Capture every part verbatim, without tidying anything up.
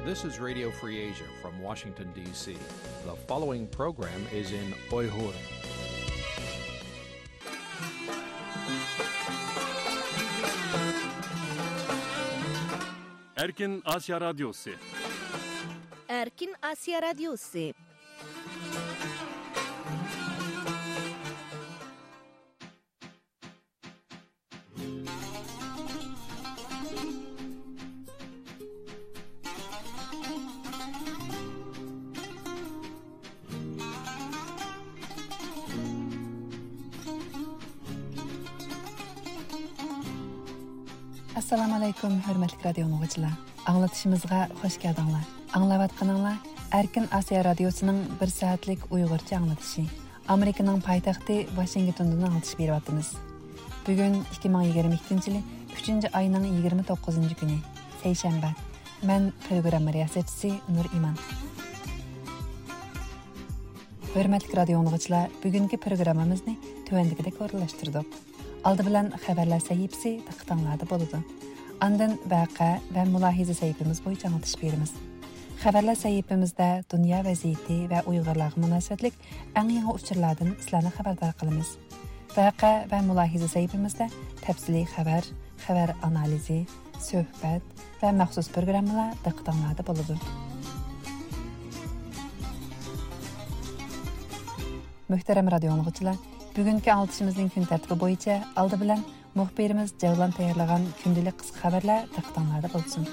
This is Radio Free Asia from Washington, D C. The following program is in Uyghur. Erkin Asya Radyosu. Erkin Asya Radyosu. ئەسسالامۇ ئەلەيكۇم، ھۆرمەتلىك رادىيو ئاڭلىغۇچىلار. ئاڭلىتىشىمىزغا خۇش كەلدىڭلار. ئاڭلاۋاتقىنىڭلار ئەركىن ئاسىيا رادىيوسىنىڭ بىر سائەتلىك ئۇيغۇرچە ئاڭلىتىشى. ئامېرىكىنىڭ پايتەختى ۋاشىنگتوندىن ئاڭلىتىش بېرىۋاتىمىز. بۈگۈن ئىككى مىڭ يىگىرمە ئىككىنچى يىلى ئۈچىنچى ئاينىڭ يىگىرمە توققۇزىنچى كۈنى، سەيشەنبە. مەن پروگرامما رىياسەتچىسى نۇر ئىمان. ھۆرمەتلىك رادىيو ئاڭلىغۇچىلار، بۈگۈنكى پروگراممىمىزنى تۆۋەندىكىدەك ئورۇنلاشتۇردۇق. ئالدى بىلەن خەۋەرلەر سەھىپىسى دىققىتىڭلاردا بولىدۇ. ئاندىن ۋەقە ۋە مۇلاھىزە سەھىپىمىز بويىچە ئاڭلىتىش بېرىمىز. خەۋەرلەر سەھىپىمىزدە دۇنيا ۋەزىيىتى ۋە ئۇيغۇرلارغا مۇناسىۋەتلىك ئەڭ يېڭى ئۇچۇرلاردىن سىلەرنى خەۋەردار قىلىمىز. ۋەقە ۋە مۇلاھىزە سەھىپىمىزدە تەپسىلىي خەۋەر، خەۋەر ئانالىزى، سۆھبەت ۋە مەخسۇس پروگراممىلار دىققىتىڭلاردا بولىدۇ. مۆھتەرەم رادىيو ئاڭلىغۇچىلار، بۈگۈنكى ئاڭلىتىشىمىزنىڭ كۈن تەرتىپى بويىچە ئالدى بىلەن مۇخبىرىمىز جەۋلان تەييارلىغان كۈندىلىك قىسقا خەۋەرلەر دىققىتىڭلاردا بولسۇن.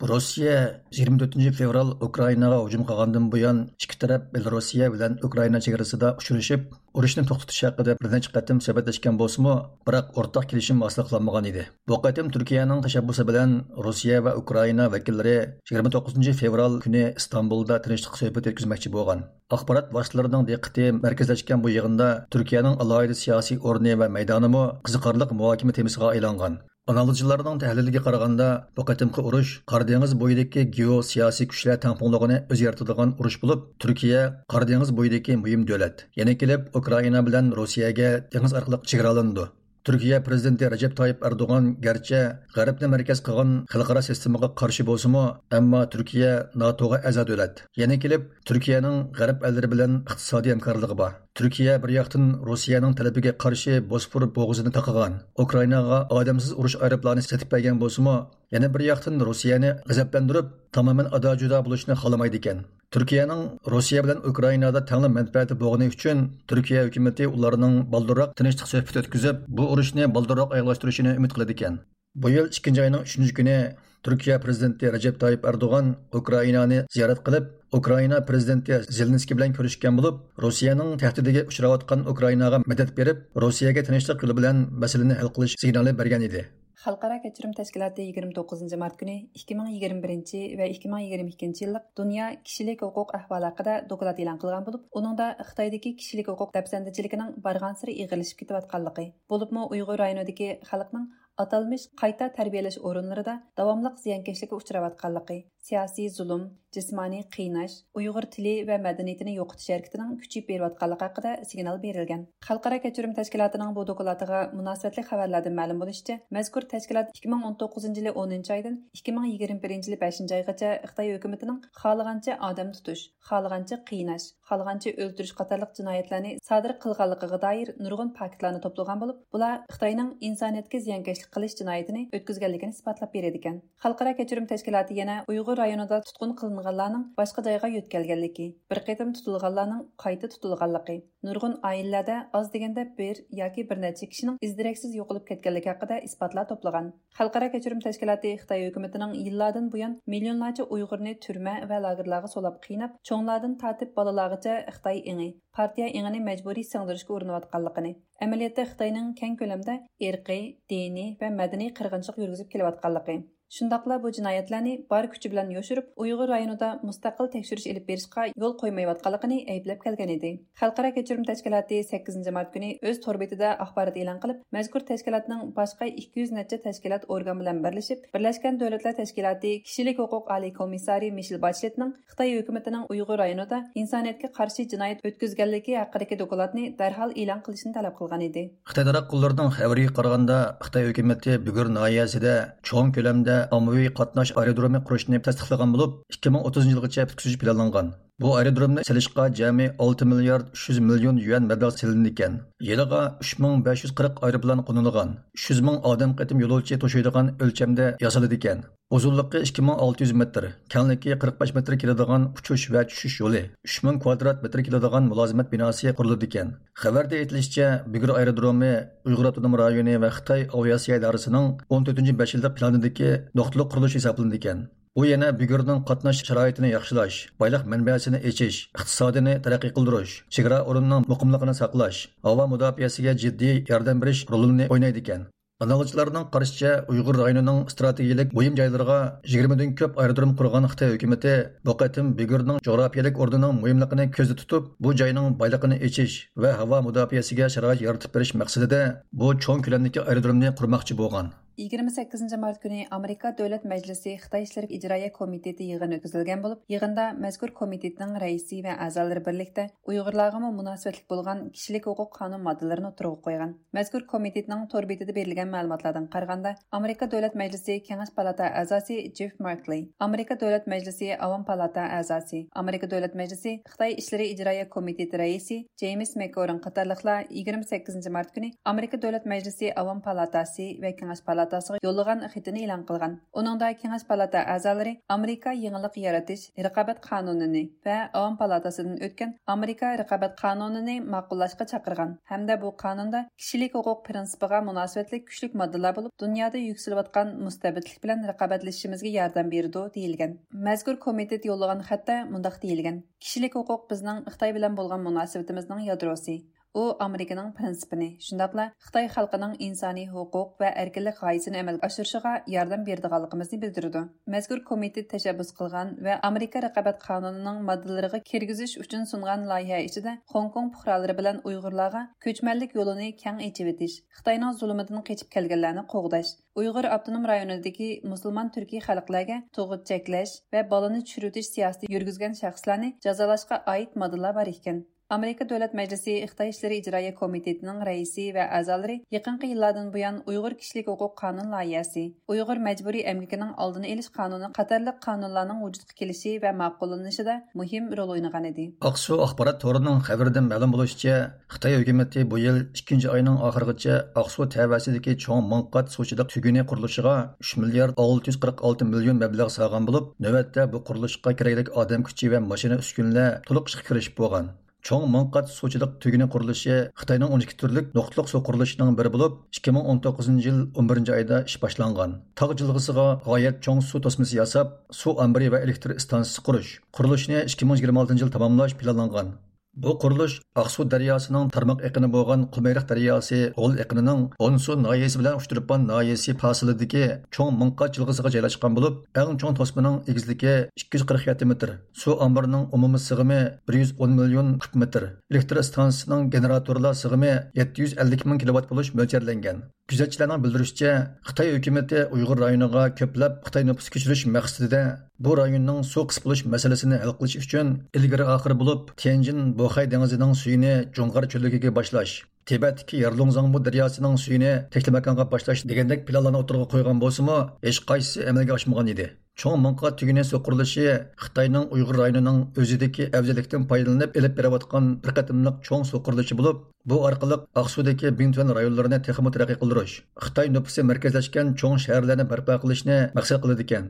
روسىيە يىگىرمە تۆتىنچى فېۋرال ئۇكرائىناغا ھۇجۇم قىلغاندىن بۇيان، ئىككى تەرەپ بېلوروسىيە بىلەن ئۇكرائىنا چېگرىسىدا ئۇچرىشىپ، ئۇرۇشنى توختىتىش ھەققىدە بىر نەچچە قېتىم سۆھبەتلەشكەن بولسىمۇ، بىراق ئورتاق كېلىشىم ھاسىل قىلالمىغان ئىدى. بۇ قېتىم تۈركىيەنىڭ تەشەببۇسى بىلەن روسىيە ۋە ئۇكرائىنا ۋەكىللىرى يىگىرمە توققۇزىنچى فېۋرال كۈنى ئىستانبۇلدا تىنچلىق سۆھبىتى ئۆتكۈزمەكچى بولغان. ئاخبارات ۋاسىتىلىرىنىڭ دىققىتى مەركەزلەشكەن بۇ يىغىندا تۈركىيەنىڭ ئالاھىدە سىياسىي ئورنى ۋە مەيدانىمۇ قىزىقارلىق مۇھاكىمە تېمىسىغا ئايلانغان. ئانالىزچىلارنىڭ تەھلىلىگە قارىغاندا، بۇ قېتىمقى ئۇرۇش قارا دېڭىز بويىدىكى گېئوسىياسىي كۈچلەر تەڭپۇڭلۇقىنى ئۆزگەرتىدىغان ئۇرۇش بولۇپ، تۈركىيە قارا دېڭىز بويىدىكى مۇھىم دۆلەت. يەنە كېلىپ، ئۇكرائىنا بىلەن روسىيەگە دېڭىز ئارقىلىق چېگرالىنىدۇ. تۈركىيە پىرېزىدېنتى رەجەپ تايىپ ئەردوغان گەرچە غەربنى مەركەز قىلغان خەلقئارا سىستېمىغا قارشى بولسىمۇ، ئەمما تۈركىيە ناتوغا ئەزا دۆلەت. يەنە كېلىپ، تۈركىيەنىڭ غەرب ئەللىرى بىلەن ئىقتىسادىي ھەمكارلىقى بار. تۈركىيە بىر ياقتىن روسىيەنىڭ تەلىپىگە قارشى بوسفور بوغۇزىنى تاقىغان، ئۇكرائىناغا ئادەمسىز ئۇرۇش ئايروپىلانى سېتىپ بەرگەن بولسىمۇ، يەنە بىر ياقتىن روسىيەنى غەزەپلەندۈرۈپ، تامامەن ئادا-جۇدا بولۇشنى خالىمايدىكەن. تۈركىيەنىڭ روسىيە بىلەن ئۇكرائىنادا تەڭلا مەنپەئەتى بولغىنى ئۈچۈن، تۈركىيە ھۆكۈمىتى ئۇلارنىڭ بالدۇرراق تىنچلىق سۆھبىتى ئۆتكۈزۈپ، بۇ ئۇرۇشنى بالدۇرراق ئاياغلاشتۇرۇشىنى ئۈمىد قىلىدىكەن. بۇ يىل ئىككىنچى ئاينىڭ ئۈچىنچى كۈنى تۈركىيە پىرېزىدېنتى رەجەپ تايىپ ئەردوغان ئۇكرائىنانى زىيارەت قىلىپ، ئۇكرائىنا پىرېزىدېنتى زېلېنسكىي بىلەن كۆرۈشكەن بولۇپ، روسىيەنىڭ تەھدىتىگە ئۇچراۋاتقان ئۇكرائىناغا مەدەت بېرىپ، روسىيەگە تىنچلىق يولى بىلەن مەسىلىنى ھەل قىلىش سىگنالى بەرگەن ئىدى. خەلقئارا كەچۈرۈم تەشكىلاتى يىگىرمە توققۇزىنچى مارت كۈنى ئىككى مىڭ يىگىرمە بىرىنچى ۋە ئىككى مىڭ يىگىرمە ئىككىنچى يىللىق دۇنيا كىشىلىك ھوقۇق ئەھۋالى ھەققىدە دوكلات ئېلان قىلغان بولۇپ، ئۇنىڭدا خىتايدىكى كىشىلىك ھوقۇق دەپسەندىچىلىكىنىڭ بارغانسېرى ئېغىرلىشىپ كېتىۋاتقانلىقى، بولۇپمۇ ئۇيغۇر رايونىدىكى خەلقنىڭ ئاتالمىش قايتا تەربىيەلەش ئورۇنلىرىدا داۋاملىق زىيانكەشلىككە ئۇچراۋاتقانلىقى، سىياسىي زۇلۇم، جىسمانىي قىيناش، ئۇيغۇر تىلى ۋە مەدەنىيىتىنى يوقىتىش ھەرىكىتىنىڭ كۈچىيىپ بېرىۋاتقانلىقى ھەققىدە سىگنال بېرىلگەن. خەلقئارا كەچۈرۈم تەشكىلاتىنىڭ بۇ دوكلاتىغا مۇناسىۋەتلىك خەۋەرلەردىن مەلۇم بولۇشىچە، مەزكۇر تەشكىلات ئىككى مىڭ ئون توققۇزىنچى يىلى ئونىنچى ئايدىن ئىككى مىڭ يىگىرمە بىرىنچى يىلى بەشىنچى ئايغىچە خىتاي ھۆكۈمىتىنىڭ خالىغانچە ئادەم تۇتۇش، خالىغانچە قىيناش، خالىغانچە ئۆلتۈرۈش قاتارلىق جىنايەتلەرنى سادىر قىلغانلىقىغا دائىر نۇرغۇن پاكىتلارنى توپلىغان بولۇپ، بۇلار خىتاينىڭ ئىنسانىيەتكە زىيانكەشلىك قىلىش جىنايىتىنى ئۆتكۈزگەنلىكىنى ئىسپاتلاپ بېرىدىكەن. خەلقئارا كەچۈرۈم تەشكىلاتى يەنە ئۇيغۇر رايونىدا تۇتقۇن قىلىنغانلارنىڭ باشقا جايغا يۆتكەلگەنلىكى، بىر قېتىم تۇتۇلغانلارنىڭ قايتا تۇتۇلغانلىقى، نۇرغۇن ئائىلىلەردە ئاز دېگەندە بىر ياكى بىر نەچچە كىشىنىڭ ئىز-دېرەكسىز يوقىلىپ كەتكەنلىكى ھەققىدە ئىسپاتلار توپلىغان. خەلقئارا كەچۈرۈم تەشكىلاتى خىتاي ھۆكۈمىتىنىڭ يىللاردىن بۇيان مىليونلارچە ئۇيغۇرنى تۈرمە ۋە لاگېرلارغا سولاپ قىيناپ، چوڭلاردىن تارتىپ بالىلارغىچە خىتاي ئېڭى، پارتىيە ئېڭىنى مەجبۇرىي سىڭدۈرۈشكە ئۇرۇنۇۋاتقانلىقىنى، ئەمەلىيەتتە خىتاينىڭ كەڭ كۆلەمدە ئىرقىي، دىنىي ۋە مەدەنىي قىرغىنچىلىق يۈرگۈزۈپ كېلىۋاتقانلىقى، شۇنداقلا بۇ جىنايەتلەرنى بار كۈچى بىلەن يوشۇرۇپ، ئۇيغۇر رايونىدا مۇستەقىل تەكشۈرۈش ئېلىپ بېرىشقا يول قويمايۋاتقانلىقىنى ئەيىبلەپ كەلگەن ئىدى. خەلقئارا كەچۈرۈم تەشكىلاتى سەككىزىنچى مارت كۈنى ئۆز تور بېتىدە ئاخبارات ئېلان قىلىپ، مەزكۇر تەشكىلاتنىڭ باشقا ئىككى يۈز نەچچە تەشكىلات ئورگان بىلەن بىرلىشىپ، بىرلەشكەن دۆلەتلەر تەشكىلاتى كىشىلىك ھوقۇق ئالىي كومىسسارى مىشېل باشلېتنىڭ خىتاي ھۆكۈمىتىنىڭ ئۇيغۇر رايونىدا ئىنسانىيەتكە قارشى جىنايەت ئۆتكۈزگەنلىكى ھەققىدىكى دوكلاتنى دەرھال ئېلان قىلىشنى تەلەپ قىلغان ئىدى. خىتاي تاراتقۇلىرىنىڭ خەۋىرىگە قارىغاندا، خىتاي ھۆكۈمىتى بۈگۈر ناھىيەسىدە چوڭ كۆلەمدە ئاممىۋى قاتناش ئايرودرومى قۇرۇشنى تەستىقلىغان بولۇپ، ئىككى مىڭ ئوتتۇزىنچى يىلغىچە پۈتكۈزۈش پىلانلانغان. بۇ ئايرودرومنى سېلىشقا جەمئىي ئالتە مىليارد ئۈچ يۈز مىليون يۈەن مەبلەغ سېلىنىدىكەن. يىلىغا ئۈچ مىڭ بەش يۈز قىرىق ئايروپىلان قونۇلىدىغان، ئۈچ يۈز مىڭ ئادەم قېتىم يولۇچى توشۇيدىغان ئۆلچەمدە ياسىلىدىكەن. ئۇزۇنلۇقى ئىككى مىڭ ئالتە يۈز مېتىر، كەڭلىكى قىرىق بەش مېتىر كېلىدىغان ئۇچۇش ۋە چۈشۈش يولى، ئۈچ مىڭ كۋادرات مېتىر كېلىدىغان مۇلازىمەت بىناسى قۇرۇلىدىكەن. خەۋەردە ئېيتىلىشىچە، بۈگۈر ئايرودرومى ئۇيغۇر ئاپتونوم رايونى ۋە خىتاي ئاۋىئاتسىيە ئىدارىسىنىڭ ئون تۆتىنچى بەش يىللىق پىلانىدىكى نۇقتىلىق قۇرۇلۇش ھېسابلىنىدىكەن. بۇ يەنە بۈگۈرنىڭ قاتناش شارائىتىنى ياخشىلاش، بايلىق مەنبەسىنى ئېچىش، ئىقتىسادىنى تەرەققىي قىلدۇرۇش، چېگرا ئورنىنىڭ مۇقىملىقىنى ساقلاش، ھاۋا مۇداپىئەسىگە جىددىي ياردەم بېرىش رولىنى ئوينايدىكەن. ئانالىزچىلارنىڭ قارىشىچە، ئۇيغۇر رايونىنىڭ ئىستراتېگىيىلىك مۇھىم جايلىرىغا يىگىرمىدىن كۆپ ئايرودروم قۇرغان خىتاي ھۆكۈمىتى بۇ قېتىم بۈگۈرنىڭ جۇغراپىيەلىك ئورنىنىڭ مۇھىملىقىنى كۆزدە تۇتۇپ، بۇ جاينىڭ بايلىقىنى ئېچىش ۋە ھاۋا مۇداپىئەسىگە شارائىت يارىتىپ بېرىش مەقسىتىدە بۇ چوڭ كۆلەمدىكى ئايرودرومنى قۇرماقچى بولغان. يىگىرمە سەككىزىنچى مارت كۈنى ئامېرىكا دۆلەت مەجلىسى خىتاي ئىشلىرى ئىجرائىيە كومىتېتى يىغىنى ئۆتكۈزۈلگەن بولۇپ، يىغىندا مەزكۇر كومىتېتنىڭ رەئىسى ۋە ئەزالىرى بىرلىكتە ئۇيغۇرلارغىمۇ مۇناسىۋەتلىك بولغان كىشىلىك ھوقۇق قانۇن ماددىلىرىنى ئوتتۇرىغا قويغان. مەزكۇر كومىتېتنىڭ تور بېتىدە بېرىلگەن مەلۇماتلاردىن قارىغاندا، ئامېرىكا دۆلەت مەجلىسى كېڭەش پالاتا ئەزاسى جېف مارتلېي، ئامېرىكا دۆلەت مەجلىسى ئاۋام پالاتا ئەزاسى، ئامېرىكا دۆلەت مەجلىسى خىتاي ئىشلىرى ئىجرائىيە كومىتېتى رەئىسى جېيمىس مەككورىن قاتارلىقلار يىگىرمە سەككىزىنچى مارت كۈنى ئامېرىكا دۆلەت مەجلىسى ئاۋام پالاتاسى ۋە كېڭەش پالاتاسىغا يوللىغان خېتىنى ئېلان قىلغان. ئۇنىڭدا كېڭەش پالاتا ئەزالىرى ئامېرىكا يېڭىلىق يارىتىش رىقابەت قانۇنىنى ۋە ئاۋام پالاتاسىدىن ئۆتكەن ئامېرىكا رىقابەت قانۇنىنى ماقۇللاشقا چاقىرغان ھەمدە بۇ قانۇندا كىشىلىك ھوقۇق پىرىنسىپىغا مۇناسىۋەتلىك كۈچلۈك ماددىلار بولۇپ، دۇنيادا يۈكسىلىۋاتقان مۇستەبىتلىك بىلەن رىقابەتلىشىشىمىزگە ياردەم بېرىدۇ، دېيىلگەن. مەزكۇر كومىتېت يوللىغان خەتتە مۇنداق دېيىلگەن: كىشىلىك ھوقۇق بىزنىڭ خىتاي بىلەن بولغان مۇناسىۋىتىمىزنىڭ يادروسى. ئۇ ئامېرىكىنىڭ پىرىنسىپىنى، شۇنداقلا خىتاي خەلقىنىڭ ئىنسانىي ھوقۇق ۋە ئەركىنلىك غايىسىنى ئەمەلگە ئاشۇرۇشىغا ياردەم بېرىدىغانلىقىمىزنى بىلدۈرىدۇ. مەزكۇر كومىتېت تەشەببۇس قىلغان ۋە ئامېرىكا رىقابەت قانۇنىنىڭ ماددىلىرىغا كىرگۈزۈش ئۈچۈن سۇنغان لايىھە ئىچىدە خوڭكوڭ پۇقرالىرى بىلەن ئۇيغۇرلارغا كۆچمەنلىك يولىنى كەڭ ئېچىۋېتىش، خىتاينىڭ زۇلۇمىدىن قېچىپ كەلگەنلەرنى قوغداش، ئۇيغۇر ئاپتونوم رايونىدىكى مۇسۇلمان تۈركىي خەلقلەرگە تۇغۇت چەكلەش ۋە بالىنى چۈشۈرۈۋېتىش سىياسىتى يۈرگۈزگەن شەخسلەرنى جازالاشقا ئائىت ماددىلار بار ئىكەن. ئامېرىكا دۆلەت مەجلىسى خىتاي ئىشلىرى ئىجرائىيە كومىتېتىنىڭ رەئىسى ۋە ئەزالىرى يېقىنقى يىللاردىن بۇيان ئۇيغۇر كىشىلىك ھوقۇق قانۇن لايىھەسى، ئۇيغۇر مەجبۇرىي ئەمگىكىنىڭ ئالدىنى ئېلىش قانۇنى قاتارلىق قانۇنلارنىڭ ۋۇجۇدقا كېلىشى ۋە ماقۇللىنىشىدا مۇھىم رول ئوينىغانىدى. ئاقسۇ ئاخبارات تورىنىڭ خەۋىرىدىن مەلۇم بولۇشىچە، خىتاي ھۆكۈمىتى بۇ يىل ئىككىنچى ئاينىڭ ئاخىرىغىچە ئاقسۇ تەۋەسىدىكى چوڭ مىڭ قات سۇچىلىق تۈگۈنى قۇرۇلۇشىغا ئۈچ مىليارد ئالتە يۈز قىرىق ئالتە مىليون مەبلەغ سالغان بولۇپ، نۆۋەتتە بۇ قۇرۇلۇشقا كېرەكلىك ئادەم كۈچى ۋە ماشىنا ئۈسكۈنىلەر تولۇق ئىشقا كىرىشىپ بولغان. چوڭ مىڭ قات سۇچىلىق تۈگۈنى قۇرۇلۇشى خىتاينىڭ ئون ئىككى تۈرلۈك نۇقتىلىق سۇ قۇرۇلۇشىنىڭ بىرى بولۇپ، ئىككى مىڭ ئون توققۇزىنچى يىل ئون بىرىنچى ئايدا ئىش باشلانغان. تاغ جىلغىسىغا غايەت چوڭ سۇ توسمىسى ياساپ، سۇ ئامبىرى ۋە ئېلېكتر ئىستانسىسى قۇرۇش، قۇرۇلۇشنى ئىككى مىڭ يىگىرمە ئالتىنچى يىل تاماملاش پىلانلانغان. بۇ قۇرۇلۇش ئاقسۇ دەرياسىنىڭ تارماق ئېقىنى بولغان قۇمۇرۇق دەرياسى غول ئېقىنىنىڭ ئونسۇ ناھىيەسى بىلەن ئۇچتۇرپان ناھىيەسى پاسىلىدىكى چوڭ مىڭ قات جىلغىسىغا جايلاشقان بولۇپ، ئەڭ چوڭ توسمىنىڭ ئېگىزلىكى ئىككى يۈز قىرىق يەتتە مېتىر، سۇ ئامبىرىنىڭ ئومۇمىي سىغىمى بىر يۈز ئون مىليون كۇب مېتىر، ئېلېكتر ئىستانسىسىنىڭ گېنېراتورلار سىغىمى يەتتە يۈز ئەللىك مىڭ كىلوۋات بولۇش مۆلچەرلەنگەن. كۆزەتچىلەرنىڭ بىلدۈرۈشىچە، خىتاي ھۆكۈمىتى ئۇيغۇر رايونىغا كۆپلەپ خىتاي نوپۇس كۆچۈرۈش مەقسىتىدە بۇ رايوننىڭ سۇ قىس بولۇش مەسىلىسىنى ھەل قىلىش ئۈچۈن ئىلگىرى ئاخىر بولۇپ تيەنجىن بوخەي دېڭىزىنىڭ سۈيىنى جۇڭغار چۆللۈكىگە باشلاش، تىبەتتىكى يارلۇڭزاڭبۇ دەرياسىنىڭ سۈيىنى تەكلىماكانغا باشلاش دېگەندەك پىلانلارنى ئوتتۇرىغا قويغان بولسىمۇ، ھېچقايسىسى ئەمەلگە ئاشمىغان ئىدى. چوڭ مىڭ قات تۈگۈنى سۇ قۇرۇلۇشى خىتاينىڭ ئۇيغۇر رايونىنىڭ ئۆزىدىكى ئەۋزەللىكتىن پايدىلىنىپ ئېلىپ بېرىۋاتقان بىر قېتىملىق چوڭ سۇ قۇرۇلۇشى بولۇپ، بۇ ئارقىلىق ئاقسۇدىكى بىڭتۈەن رايونلىرىنى تېخىمۇ تەرەققىي قىلدۇرۇش، خىتاي نوپۇسى مەركەزلەشكەن چوڭ شەھەرلەرنى بەرپا قىلىشنى مەقسەت قىلىدىكەن.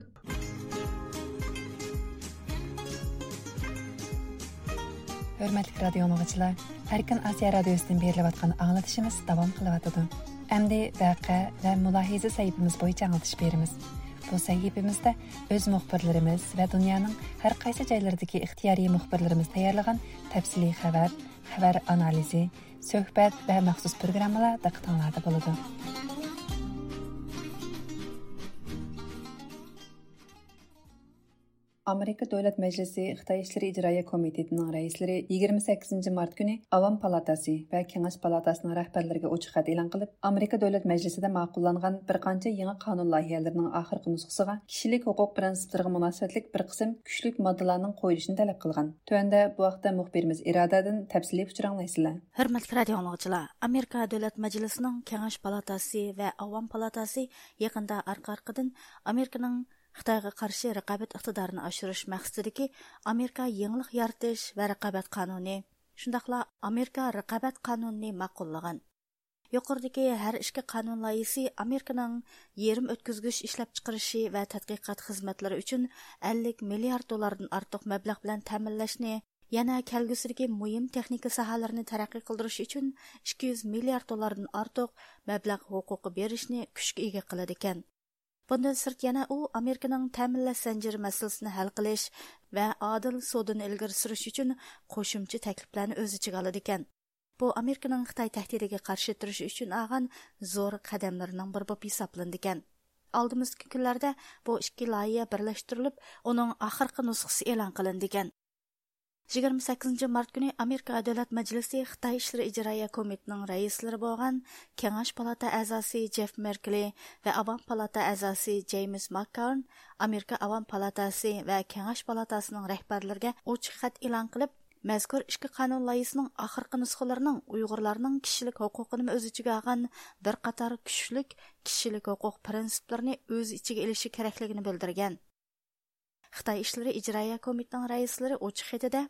ھۆرمەتلىك رادىيو ئاڭلىغۇچىلار، ئەركىن ئاسىيا رادىيوسىدىن بېرىلىۋاتقان ئاڭلىتىشىمىز داۋام قىلىۋاتىدۇ. ئەمدى ۋەقە ۋە مۇلاھىزە سەھىپىمىز بويىچە ئاڭلىتىش بېرىمىز. بۇ سەھىپىمىزدە ئۆز مۇخبىرلىرىمىز ۋە دۇنيانىڭ ھەر قايسى جايلىرىدىكى ئىختىيارىي مۇخبىرلىرىمىز تەييارلىغان تەپسىلىي خەۋەر، خەۋەر ئانالىزى، سۆھبەت ۋە مەخسۇس پروگراممىلار دىققىتىڭلاردا بولىدۇ. ئامېرىكا دۆلەت مەجلىسى خىتاي ئىشلىرى ئىجرائىيە كومىتېتىنىڭ رەئىسلىرى يىگىرمە سەككىزىنچى مارت كۈنى ئاۋام پالاتاسى ۋە كېڭەش پالاتاسىنىڭ رەھبەرلىرىگە ئوچۇق خەت ئېلان قىلىپ، ئامېرىكا دۆلەت مەجلىسىدە ماقۇللانغان بىر قانچە يېڭى قانۇن لايىھەلىرىنىڭ ئاخىرقى نۇسخىسىغا كىشىلىك ھوقۇق پىرىنسىپلىرىغا مۇناسىۋەتلىك بىر قىسىم كۈچلۈك ماددىلارنىڭ قويۇلۇشىنى تەلەپ قىلغان. تۆۋەندە بۇ ھەقتە مۇخبىرىمىز ئىرادەدىن تەپسىلىي ئۇچۇر ئاڭلايسىلەر. ھۆرمەتلىك رادىئو ئاڭلىغۇچىلار، ئامېرىكا دۆلەت مەجلىسىنىڭ كېڭەش پالاتاسى ۋە ئاۋام پالاتاسى يېقىندا ئارقا-ئارقىدىن ئامېرىكىنىڭ خىتايغا قارشى رىقابەت ئىقتىدارىنى ئاشۇرۇش مەقسىتىدىكى ئامېرىكا يېڭىلىق يارىتىش ۋە رىقابەت قانۇنى، شۇنداقلا ئامېرىكا رىقابەت قانۇنىنى ماقۇللىغان. يۇقىرىدىكى ھەر ئىككى قانۇن لايىھىسى ئامېرىكىنىڭ يېرىم ئۆتكۈزگۈچ ئىشلەپچىقىرىشى ۋە تەتقىقات خىزمەتلىرى ئۈچۈن ئەللىك مىليارد دوللاردىن ئارتۇق مەبلەغ بىلەن تەمىنلەشنى، يەنە كەلگۈسىدىكى مۇھىم تېخنىكا ساھەلىرىنى تەرەققىي قىلدۇرۇش ئۈچۈن ئىككى يۈز مىليارد دوللاردىن ئارتۇق مەبلەغ ھوقۇقى بېرىشنى كۈچكە ئىگە قىلىدىكەن. بۇندىن سىرت، يەنە ئۇ ئامېرىكىنىڭ تەمىنلەش زەنجىرى مەسىلىسىنى ھەل قىلىش ۋە ئادىل سودىنى ئىلگىرى سۈرۈش ئۈچۈن قوشۇمچە تەكلىپلەرنى ئۆز ئىچىگە ئالىدىكەن. بۇ ئامېرىكىنىڭ خىتاي تەھدىتىگە قارشى تۇرۇش ئۈچۈن ئالغان زور قەدەملىرىنىڭ بىرى بولۇپ ھېسابلىنىدىكەن. ئالدىمىزدىكى كۈنلەردە بۇ ئىككى لايىھە بىرلەشتۈرۈلۈپ، ئۇنىڭ ئاخىرقى نۇسخىسى ئېلان قىلىنىدىكەن. يىگىرمە سەككىزىنچى مارت كۈنى ئامېرىكا دۆلەت مەجلىسى خىتاي ئىشلىرى ئىجرائىيە كومىتېتىنىڭ رەئىسلىرى بولغان كېڭەش پالاتا ئەزاسى جېف مېركلى ۋە ئاۋام پالاتا ئەزاسى جېيمس ماككارن ئامېرىكا ئاۋام پالاتاسى ۋە كېڭەش پالاتاسىنىڭ رەھبەرلىرىگە ئوچۇق خەت ئېلان قىلىپ، مەزكۇر ئىككى قانۇن لايىھىسىنىڭ ئاخىرقى نۇسخىلىرىنىڭ ئۇيغۇرلارنىڭ كىشىلىك ھوقۇقىنىمۇ ئۆز ئىچىگە ئالغان بىر قاتار كۈچلۈك كىشىلىك ھوقۇق پىرىنسىپلىرىنى ئۆز ئىچىگە ئېلىشى كېرەكلىكىنى بىلدۈرگەن. خىتاي ئىشلىرى ئىجرائىيە كومىتېتىنىڭ رەئىسلىرى ئوچۇق خېتىدە،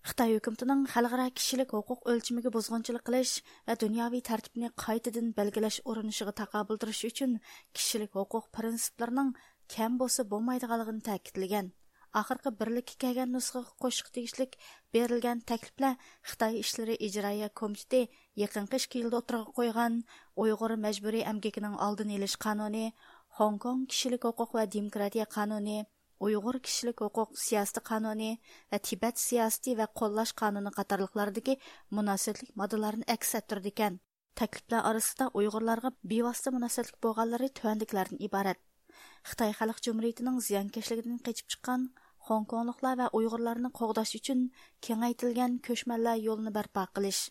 خىتاي ھۆكۈمىتىنىڭ خەلقئارا كىشىلىك ھوقۇق ئۆلچىمىگە بۇزغۇنچىلىق قىلىش ۋە دۇنياۋى تەرتىپنى قايتىدىن بەلگىلەش ئۇرۇنۇشىغا تاقابىل تۇرۇش ئۈچۈن كىشىلىك ھوقۇق پىرىنسىپلىرىنىڭ كەم بولسا بولمايدىغانلىقىنى تەكىتلىگەن. ئاخىرقى بىرلىككە كەلگەن نۇسخىغا قوشۇشقا تېگىشلىك بېرىلگەن تەكلىپلەر خىتاي ئىشلىرى ئىجرائىيە كومىتېتى يېقىنقى ئىككى يىلدا ئوتتۇرىغا قويغان ئۇيغۇر مەجبۇرىي ئەمگىكىنىڭ ئالدىنى ئېلىش قانۇنى، خوڭكوڭ كىشىلىك ھوقۇق ۋە دېموكراتىيە قانۇنى، ئۇيغۇر كىشىلىك ھوقۇق سىياسىتى قانۇنى ۋە تىبەت سىياسىتى ۋە قوللاش قانۇنى قاتارلىقلاردىكى مۇناسىۋەتلىك ماددىلارنى ئەكس ئەتتۈرىدىكەن. تەكلىپلەر ئارىسىدا ئۇيغۇرلارغا بىۋاسىتە مۇناسىۋەتلىك بولغانلىرى تۆۋەندىكىلەردىن ئىبارەت: خىتاي خەلق جۇمھۇرىيىتىنىڭ زىيانكەشلىكىدىن قېچىپ چىققان خوڭكوڭلۇقلار ۋە ئۇيغۇرلارنى قوغداش ئۈچۈن كېڭەيتىلگەن كۆچمەنلەر يولىنى بەرپا قىلىش،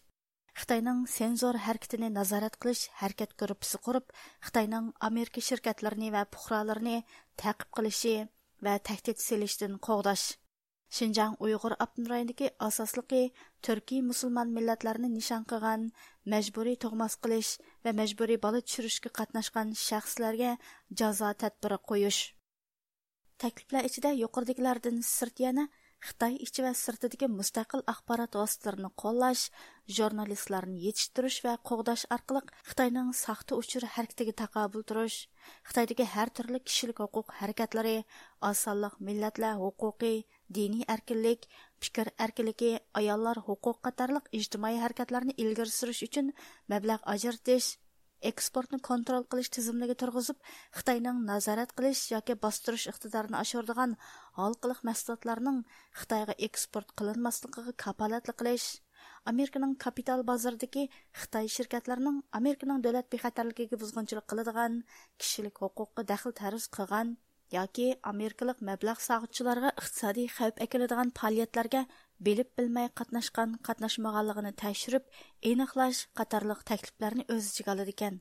خىتاينىڭ سېنزور ھەرىكىتىنى نازارەت قىلىش ھەرىكەت گۇرۇپپىسى قۇرۇپ، خىتاينىڭ ئامېرىكا شىركەتلىرىنى ۋە پۇقرالىرىنى تەقىپ قىلىشى ۋە تەھدىت سېلىشتىن قوغداش، شىنجاڭ ئۇيغۇر ئاپتونوم رايونىدىكى ئاساسلىقى تۈركىي مۇسۇلمان مىللەتلەرنى نىشان قىلغان مەجبۇرىي تۇغماس قىلىش ۋە مەجبۇرىي بالا چۈشۈرۈشكە قاتناشقان شەخسلەرگە جازا تەدبىرى قويۇش. تەكلىپلەر ئىچىدە يۇقىرىدىكىلەردىن سىرت يەنە خىتاي ئىچى ۋە سىرتىدىكى مۇستەقىل ئاخبارات ۋاسىتىلىرىنى قوللاش، ژۇرنالىستلارنى يېتىشتۈرۈش ۋە قوغداش ئارقىلىق خىتاينىڭ ساختا ئۇچۇر ھەرىكىتىگە تاقابىل تۇرۇش، خىتايدىكى ھەر تۈرلۈك كىشىلىك ھوقۇق ھەرىكەتلىرى، ئاز سانلىق مىللەتلەر ھوقۇقى، دىنىي ئەركىنلىك، پىكىر ئەركىنلىكى، ئاياللار ھوقۇقى قاتارلىق ئىجتىمائىي ھەرىكەتلەرنى ئىلگىرى سۈرۈش ئۈچۈن مەبلەغ ئاجرىتىش، ئېكسپورتنى كونترول قىلىش تىزىملىكى تۇرغۇزۇپ، خىتاينىڭ نازارەت قىلىش ياكى باستۇرۇش ئىقتىدارىنى ئاشۇرىدىغان ھالقىلىق مەھسۇلاتلارنىڭ خىتايغا ئېكسپورت قىلىنماسلىقىغا كاپالەتلىك قىلىش، ئامېرىكىنىڭ كاپىتال بازىرىدىكى خىتاي شىركەتلىرىنىڭ ئامېرىكىنىڭ دۆلەت بىخەتەرلىكىگە بۇزغۇنچىلىق قىلىدىغان، كىشىلىك ھوقۇققا دەخلى تەرۇز قىلغان، ياكى ئامېرىكىلىق مەبلەغ سالغۇچىلارغا ئىقتىسادىي خەۋپ ئەكېلىدىغان پائالىيەتلەرگە بىلىپ بىلمەي قاتناشقان، قاتناشمىغانلىقىنى تەكشۈرۈپ ئېنىقلاش قاتارلىق تەكلىپلەرنى ئۆز ئىچىگە ئالىدىكەن.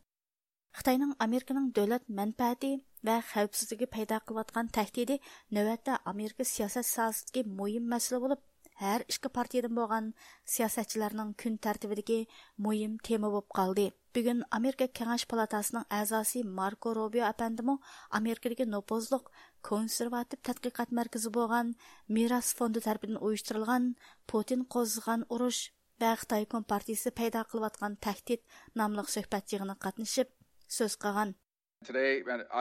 خىتاينىڭ ئامېرىكىنىڭ دۆلەت مەنپەئەتى ۋە خەۋپسىزلىكى پەيدا قىلىۋاتقان تەھدىتى نۆۋەتتە ئامېرىكا سىياسەت ساھەسىدىكى مۇھىم مەسىلە بولۇپ، ھەر ئىككى پارتىيىدىن بولغان سىياسەتچىلەرنىڭ كۈن تەرتىبىدىكى مۇھىم تېما بولۇپ قالدى. بۈگۈن ئامېرىكا كېڭەش پالاتاسىنىڭ ئەزاسى ماركو روبىيو ئەپەندىمۇ ئامېرىكىدىكى نوپۇزلۇق كونسېرۋاتىپ تەتقىقات مەركىزى بولغان مىراس فوندى تەرىپىدىن ئۇيۇشتۇرۇلغان پۇتىن قوزغىغان ئۇرۇش ۋە خىتاي كومپارتىيىسى پەيدا قىلىۋاتقان تەھدىت ناملىق سۆھبەت يىغىنىغا قاتنىشىپ سۆز قىلغان. Today,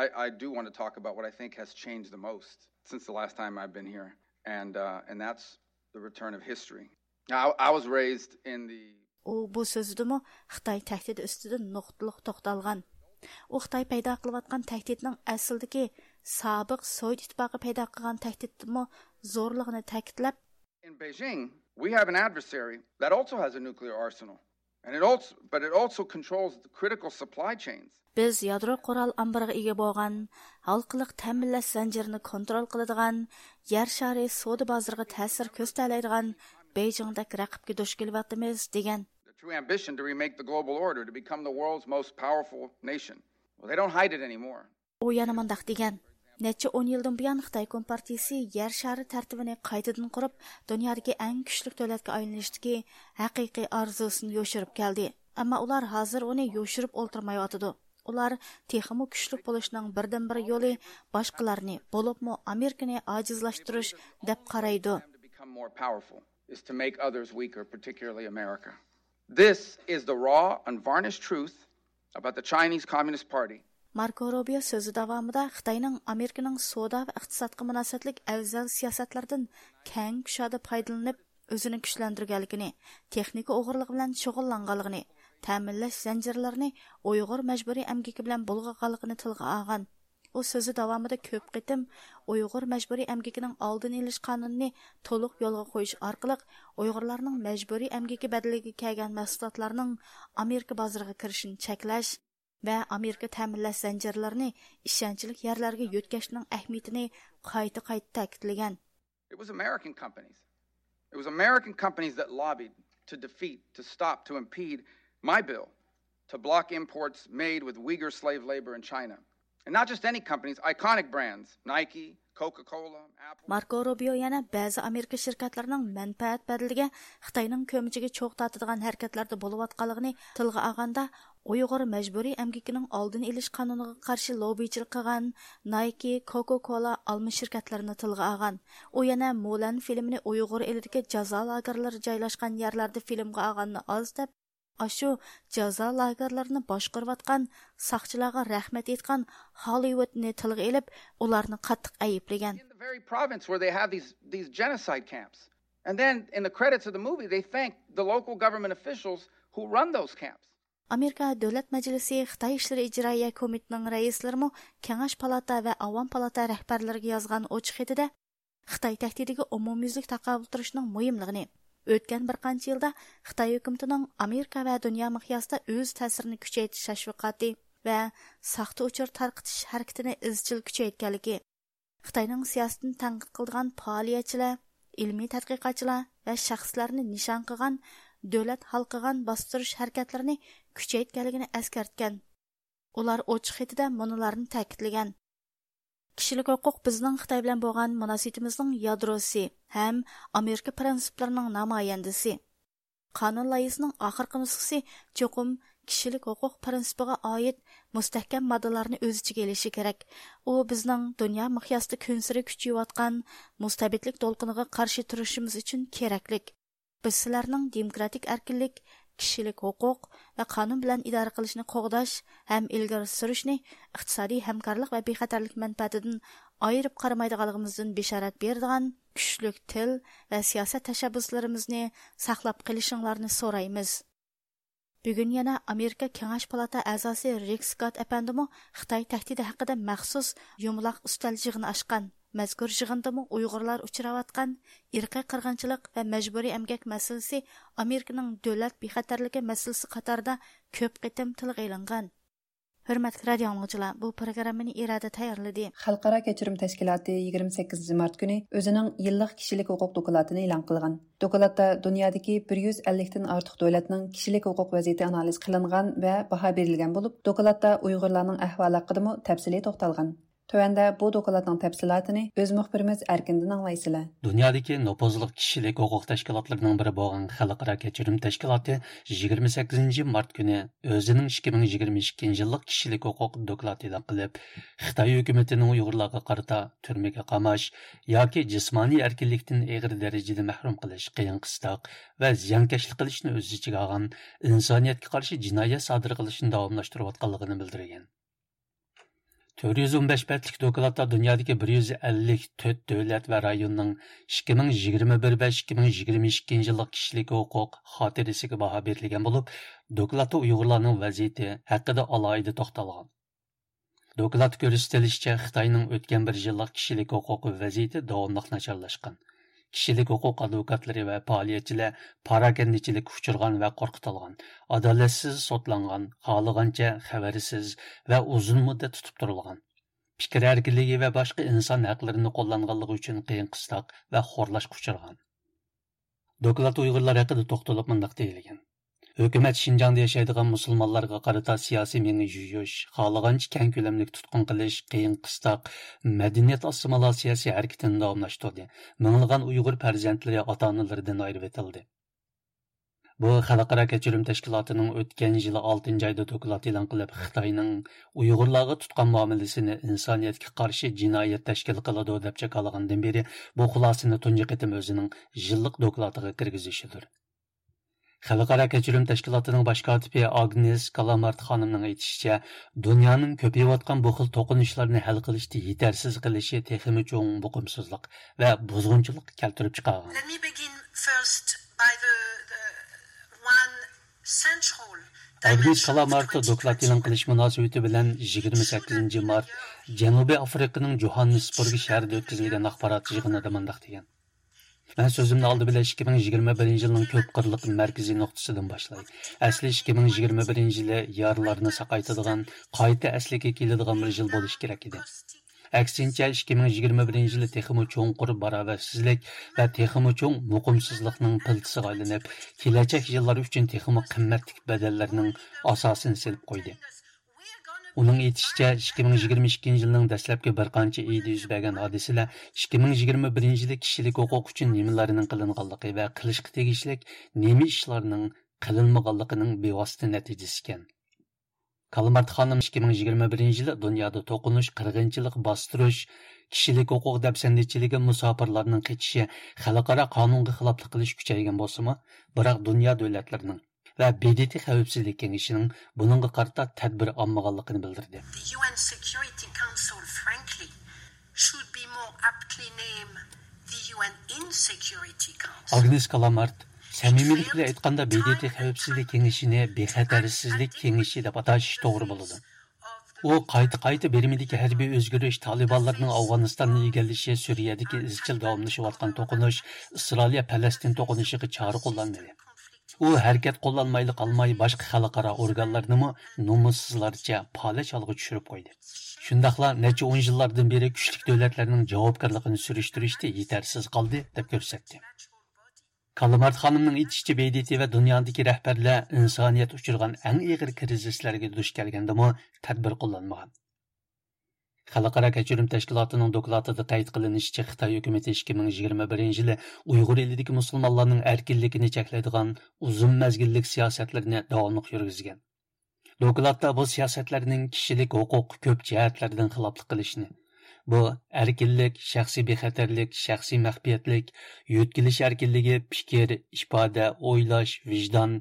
I, I do want to talk about what I think has changed the most since the last time I've been here, and, uh, and that's the return of history. Now, I, I was raised in the ئۇ بۇ سۆزىدىمۇ خىتاي تەھدىتى ئۈستىدىن نۇقتىلىق توختالغان. ئۇ خىتاي پەيدا قىلىۋاتقان تەھدىتنىڭ ئەسلىدىكى سابىق سوۋېت ئىتتىپاقى پەيدا قىلغان تەھدىتتىنمۇ زورلۇقىنى تەكىتلەپ، In Beijing, we have an adversary that also has a nuclear arsenal. And it also, but it also controls the critical supply chains. بىز يادرو قورال ئامبىرىغا ئىگە بولغان، ھالقىلىق تەمىنلەش زەنجىرىنى كونترول قىلىدىغان، يەر شارى سودا بازىرىغا تەسىر كۆرسىتەلەيدىغان بېيجىڭدەك رەقىبكە دۇچ كېلىۋاتىمىز، دېگەن. The true ambition to remake the global order, to become the world's most powerful nation. Well, they don't hide it anymore. ئۇ يەنە مۇنداق دېگەن: نەچچە ئون يىلدىن بۇيان خىتاي كومپارتىيىسى يەر شارى تەرتىپىنى قايتىدىن قۇرۇپ، دۇنيادىكى ئەڭ كۈچلۈك دۆلەتكە ئايلىنىشتىكى ھەقىقىي ئارزۇسىنى يوشۇرۇپ كەلدى. ئەمما ئۇلار ھازىر ئۇنى يوشۇرۇپ ئولتۇرمايۋاتىدۇ. ئۇلار تېخىمۇ كۈچلۈك بولۇشنىڭ بىردىنبىر يولى باشقىلارنى، بولۇپمۇ ئامېرىكىنى ئاجىزلاشتۇرۇش دەپ قارايدۇ. To become more powerful is to make others weaker, particularly America. This is the raw, unvarnished truth about the Chinese Communist Party. ماركو روبىيو سۆزى داۋامىدا خىتاينىڭ ئامېرىكىنىڭ سودا ۋە ئىقتىسادقا مۇناسىۋەتلىك ئەۋزەل سىياسەتلىرىدىن كەڭ كۇشادە پايدىلىنىپ، ئۆزىنى كۈچلەندۈرگەنلىكىنى، تېخنىكا ئوغرىلىقى بىلەن شۇغۇللانغانلىقىنى، تەمىنلەش زەنجىرلىرىنى ئۇيغۇر مەجبۇرىي ئەمگىكى بىلەن بۇلغىغانلىقىنى تىلغا ئالغان. ئۇ سۆزى داۋامىدا كۆپ قېتىم ئۇيغۇر مەجبۇرىي ئەمگىكىنىڭ ئالدىنى ئېلىش قانۇنىنى تولۇق يولغا قويۇش ئارقىلىق ئۇيغۇرلارنىڭ مەجبۇرىي ئەمگىكى بەدىلىگە كەلگەن مەھسۇلاتلارنىڭ ئامېرىكا بازىرىغا كىرىشىنى چەكلەش ۋە ئامېرىكا تەمىنلەش زەنجىرلىرىنى ئىشەنچلىك يەرلەرگە يۆتكەشنىڭ ئەھمىيىتىنى قايتا-قايتا تەكىتلىگەن. It was American companies. It was American companies that lobbied to defeat, to stop, to impede my bill to block imports made with Uyghur slave labor in China. And not just any companies, iconic brands, Nike, Coca-Cola, Apple. ماركو روبىيو يەنە بەزى ئامېرىكا شىركەتلىرىنىڭ مەنپەئەت بەدىلىگە خىتاينىڭ كۆمىچىگە چوغ تارتىدىغان ھەرىكەتلەردە بولۇۋاتقانلىقىنى تىلغا ئالغاندا، ئۇيغۇر مەجبۇرىي ئەمگىكىنىڭ ئالدىنى ئېلىش قانۇنىغا قارشى لوببىچىلىق قىلغان نايكى، كوكا كولا، ئالما شىركەتلىرىنى تىلغا ئالغان. ئۇ يەنە مۇلەن فىلىمىنى ئۇيغۇر ئېلىدىكى جازا لاگېرلىرى جايلاشقان يەرلەردە فىلىمغا ئالغاننى ئاز دەپ، ئاشۇ جازا لاگېرلىرىنى باشقۇرۇۋاتقان ساقچىلارغا رەھمەت ئېيتقان ھاللىۋۇدنى تىلغا ئېلىپ، ئۇلارنى قاتتىق ئەيىبلىگەن. In the very province where they have these, these genocide camps. And then in the credits of the movie, they thank the local government officials who run those camps. ئامېرىكا دۆلەت مەجلىسى خىتاي ئىشلىرى ئىجرائىيە كومىتېتىنىڭ رەئىسلىرىمۇ كېڭەش پالاتا ۋە ئاۋام پالاتا رەھبەرلىرىگە يازغان ئوچۇق خېتىدە خىتاي تەھدىتىگە ئومۇميۈزلۈك تاقابىل تۇرۇشنىڭ مۇھىملىقىنى، ئۆتكەن بىر قانچە يىلدا خىتاي ھۆكۈمىتىنىڭ ئامېرىكا ۋە دۇنيا مىقياسىدا ئۆز تەسىرىنى كۈچەيتىش تەشۋىقاتى ۋە ساختا ئۇچۇر تارقىتىش ھەرىكىتىنى ئىزچىل كۈچەيتكەنلىكى، خىتاينىڭ سىياسىتىنى تەنقىد قىلىدىغان پائالىيەتچىلەر، ئىلمىي تەتقىقاتچىلار ۋە شەخسلەرنى نىشان قىلغان دۆلەت ھالقىغان باستۇرۇش ھەرىكەتلىرىنى كۈچەيتكەنلىكىنى ئەسكەرتكەن. ئۇلار ئوچۇق خېتىدە مۇنۇلارنى تەكىتلىگەن: كىشىلىك ھوقۇق بىزنىڭ خىتاي بىلەن بولغان مۇناسىۋىتىمىزنىڭ يادروسى ھەم ئامېرىكا پىرىنسىپلىرىنىڭ نامايەندىسى. قانۇن لايىھىسىنىڭ ئاخىرقى نۇسخىسى چوقۇم كىشىلىك ھوقۇق پىرىنسىپىغا ئائىت مۇستەھكەم ماددىلارنى ئۆز ئىچىگە ئېلىشى كېرەك. ئۇ بىزنىڭ دۇنيا مىقياسىدا كۈنسېرى كۈچىيىۋاتقان مۇستەبىتلىك دولقۇنىغا قارشى تۇرۇشىمىز ئۈچۈن كېرەكلىك. بىز سىلەرنىڭ دېموكراتىك ئەركىنلىك، كىشىلىك ھوقۇق ۋە قانۇن بىلەن ئىدارە قىلىشنى قوغداش ھەم ئىلگىرى سۈرۈشنى، ئىقتىسادىي ھەمكارلىق ۋە بىخەتەرلىك مەنپەئەتىدىن ئايرىپ قارىمايدىغانلىقىمىزدىن بېشارەت بېرىدىغان كۈچلۈك تىل ۋە سىياسەت تەشەببۇسلىرىمىزنى ساقلاپ قېلىشىڭلارنى سورايمىز. بۈگۈن يەنە ئامېرىكا كېڭەش پالاتا ئەزاسى رىك سكات ئەپەندىمۇ خىتاي تەھدىتى ھەققىدە مەخسۇس يۇمىلاق ئۈستەل يىغىنى ئاچقان. مەزكۇر يىغىندىمۇ ئۇيغۇرلار ئۇچراۋاتقان ئىرقىي قىرغىنچىلىق ۋە مەجبۇرىي ئەمگەك مەسىلىسى ئامېرىكىنىڭ دۆلەت بىخەتەرلىكى مەسىلىسى قاتارىدا كۆپ قېتىم تىلغا ئېلىنغان. ھۆرمەتلىك رادىئو ئاڭلىغۇچىلار، بۇ پروگراممىنى ئىرادە تەييارلىدى. خەلقئارا كەچۈرۈم تەشكىلاتى يىگىرمە سەككىزىنچى مارت كۈنى ئۆزىنىڭ يىللىق كىشىلىك ھوقۇق دوكلاتىنى ئېلان قىلغان. دوكلاتتا دۇنيادىكى بىر يۈز ئەللىكتىن ئارتۇق دۆلەتنىڭ كىشىلىك ھوقۇق ۋەزىيىتى ئانالىز قىلىنغان ۋە باھا بېرىلگەن بولۇپ، دوكلاتتا ئۇيغۇرلارنىڭ ئەھۋالى ھەققىدىمۇ تەپسىلىي توختالغان. تۆۋەندە بۇ دوكلاتنىڭ تەپسىلاتىنى ئۆز مۇخبىرىمىز ئەركىندىن ئاڭلايسىلەر. دۇنيادىكى نوپۇزلۇق كىشىلىك ھوقۇق تەشكىلاتلىرىنىڭ بىرى بولغان خەلقئارا كەچۈرۈم تەشكىلاتى يىگىرمە سەككىزىنچى مارت كۈنى ئۆزىنىڭ ئىككى مىڭ يىگىرمە ئىككىنچى يىللىق كىشىلىك ھوقۇق دوكلاتى ئېلان قىلىپ، خىتاي ھۆكۈمىتىنىڭ ئۇيغۇرلارغا قارىتا تۈرمىگە قاماش ياكى جىسمانىي ئەركىنلىكتىن ئېغىر دەرىجىدە مەھرۇم قىلىش، قىيىن-قىستاق ۋە زىيانكەشلىك قىلىشنى ئۆز ئىچىگە ئالغان ئىنسانىيەتكە قارشى جىنايەت سادىر قىلىشنى داۋاملاشتۇرۇۋاتقانلىقىنى بىلدۈرگەن. تۆت يۈز ئون بەش بەتلىك دوكلاتتا دۇنيادىكى بىر يۈز ئەللىك تۆت دۆلەت ۋە رايوننىڭ ئىككى مىڭ يىگىرمە بىر ۋە ئىككى مىڭ يىگىرمە ئىككىنچى يىللىق كىشىلىك ھوقۇق خاتىرىسىگە باھا بېرىلگەن بولۇپ، دوكلاتتا ئۇيغۇرلارنىڭ ۋەزىيىتى ھەققىدە ئالاھىدە توختالغان. دوكلاتتا كۆرسىتىلىشىچە، خىتاينىڭ ئۆتكەن بىر يىللىق كىشىلىك ھوقۇق ۋەزىيىتى داۋاملىق ناچارلاشقان. كىشىلىك ھوقۇق ئادۋوكاتلىرى ۋە پائالىيەتچىلەر پاراكەندىچىلىككە ئۇچرىغان ۋە قورقۇتۇلغان، ئادالەتسىز سوتلانغان، خالىغانچە خەۋەرسىز ۋە ئۇزۇن مۇددەت تۇتۇپ تۇرۇلغان، پىكىر ئەركىنلىكى ۋە باشقا ئىنسان ھەقلىرىنى قوللانغانلىقى ئۈچۈن قىيىن قىستاق ۋە خورلاشقا ئۇچرىغان. دوكلاتتا ئۇيغۇرلار ھەققىدە توختىلىپ مۇنداق دېيىلگەن: ھۆكۈمەت شىنجاڭدا ياشايدىغان مۇسۇلمانلارغا قارىتا سىياسىي مېڭە يۇيۇش، خالىغانچە كەڭ كۆلەملىك تۇتقۇن قىلىش، قىيىن قىستاق، مەدەنىيەت ئاسسىمىلياتسىيەسى ھەرىكىتىنى داۋاملاشتۇردى. مىڭلىغان ئۇيغۇر پەرزەنتلىرى ئاتا-ئانىلىرىدىن ئايرىۋېتىلدى. بۇ خەلقئارا كەچۈرۈم تەشكىلاتىنىڭ ئۆتكەن يىلى ئالتىنچى ئايدا دوكلات ئېلان قىلىپ، خىتاينىڭ ئۇيغۇرلارغا تۇتقان مۇئامىلىسىنى ئىنسانىيەتكە قارشى جىنايەت تەشكىل قىلىدۇ، دەپ جاكارلىغاندىن بېرى، بۇ خۇلاسىنى تۇنجى قېتىم ئۆزىنىڭ يىللىق دوكلاتىغا كىرگۈزۈشىدۇر. خەلقئارا كەچۈرۈم تەشكىلاتىنىڭ باش كاتىپى ئاگنېس كالامارت خانىمنىڭ ئېيتىشىچە، دۇنيانىڭ كۆپىيىۋاتقان بۇ خىل توقۇنۇشلارنى ھەل قىلىشتا يېتەرسىز قېلىشى تېخىمۇ چوڭ بوقۇمسىزلىق ۋە بۇزغۇنچىلىققا كەلتۈرۈپ چىقارغان. Let me begin first by the, the one central ئاگنېس dimension of كالامارت دوكلات ئېلان قىلىش مۇناسىۋىتى بىلەن يىگىرمە سەككىزىنچى مارت جەنۇبىي ئافرىقىنىڭ جوھاننېسبۇرگ شەھىرىدە ئۆتكۈزۈلگەن ئاخبارات يىغىنىدا مۇنداق دېگەن: مەن سۆزۈمنى ئالدى بىلەن ئىككى مىڭ يىگىرمە بىرىنچى يىلنىڭ كۆپ قىرلىق مەركىزىي نۇقتىسىدىن باشلاي. ئەسلى ئىككى مىڭ يىگىرمە بىرىنچى يىلى يارىلارنى ساقايتىدىغان، قايتا ئەسلىگە كېلىدىغان بىر يىل بولۇشى كېرەك ئىدى. ئەكسىنچە، ئىككى مىڭ يىگىرمە بىرىنچى يىلى تېخىمۇ چوڭقۇر باراۋەرسىزلىك ۋە تېخىمۇ چوڭ مۇقىمسىزلىقنىڭ پىلتىسىغا ئايلىنىپ، كېلەچەك يىللار ئۈچۈن تېخىمۇ قىممەتلىك بەدەللەرنىڭ ئاساسىنى سېلىپ قويدى. ئۇنىڭ ئېيتىشىچە، ئىككى مىڭ يىگىرمە ئىككىنچى يىلنىڭ دەسلەپكى بىر قانچە ئېيىدا يۈز بەرگەن ھادىسىلەر ئىككى مىڭ يىگىرمە بىرىنچى يىلى كىشىلىك ھوقۇق ئۈچۈن نېمىلەرنىڭ قىلىنغانلىقى ۋە قىلىشقا تېگىشلىك نېمە ئىشلارنىڭ قىلىنمىغانلىقىنىڭ بىۋاسىتە نەتىجىسى ئىكەن. كالمارت خانىم ئىككى مىڭ يىگىرمە بىرىنچى يىلى دۇنيادا توقۇنۇش، قىرغىنچىلىق، باستۇرۇش، كىشىلىك ھوقۇق دەپسەندىچىلىكى، مۇساپىرلارنىڭ قېچىشى، خەلقئارا قانۇنغا خىلاپلىق قىلىش كۈچەيگەن بولسىمۇ، بىراق دۇنيا دۆلەتلىرىنىڭ ۋە ب د ت خەۋپسىزلىك كېڭىشىنىڭ بۇنىڭغا قارىتا تەدبىر ئالمىغانلىقىنى بىلدۈردى. The U N Security Council, frankly, should be more aptly named the U N Insecurity Council. ئاگنېس كالامارت سەمىمىيلىك بىلەن ئېيتقاندا، ب د ت خەۋپسىزلىك كېڭىشىنى بىخەتەرسىزلىك كېڭىشى دەپ ئاتاش توغرا بولىدۇ. ئۇ قايتا-قايتا بىرمىدىكى ھەربىي ئۆزگىرىش، تالىبانلارنىڭ ئافغانىستاننى ئىگىلىشى، سۈرىيەدىكى ئىزچىل داۋاملىشىۋاتقان توقۇنۇش، ئىسرائىلىيە پەلەستىن توقۇنۇشىغا چارە قوللانمىدى. ئۇ ھەرىكەت قوللانمايلا قالماي، باشقا خەلقئارا ئورگانلارنىمۇ نومۇسسىزلارچە پالەچ ھالغا چۈشۈرۈپ قويدى. شۇنداقلا نەچچە ئون يىللاردىن بېرى كۈچلۈك دۆلەتلەرنىڭ جاۋابكارلىقىنى سۈرۈشتۈرۈشتە يېتەرسىز قالدى، دەپ كۆرسەتتى. كالمارت خانىمنىڭ ئېيتىشىچە، ب د ت ۋە دۇنيادىكى رەھبەرلەر ئىنسانىيەت ئۇچرىغان ئەڭ ئېغىر كىرىزىسلەرگە دۇچ كەلگەندىمۇ تەدبىر قوللانمىغان. خەلقئارا كەچۈرۈم تەشكىلاتىنىڭ دوكلاتىدا قەيت قىلىنىشىچە، خىتاي ھۆكۈمىتى ئىككى مىڭ يىگىرمە بىرىنچى يىلى ئۇيغۇر ئېلىدىكى مۇسۇلمانلارنىڭ ئەركىنلىكىنى چەكلەيدىغان ئۇزۇن مەزگىللىك سىياسەتلىرىنى داۋاملىق يۈرگۈزگەن. دوكلاتتا بۇ سىياسەتلەرنىڭ كىشىلىك ھوقۇققا كۆپ جەھەتلەردىن خىلاپلىق قىلىشىنى، بۇ ئەركىنلىك، شەخسىي بىخەتەرلىك، شەخسىي مەخپىيەتلىك، يۆتكىلىش ئەركىنلىكى، پىكىر، ئىپادە، ئويلاش، ۋىجدان،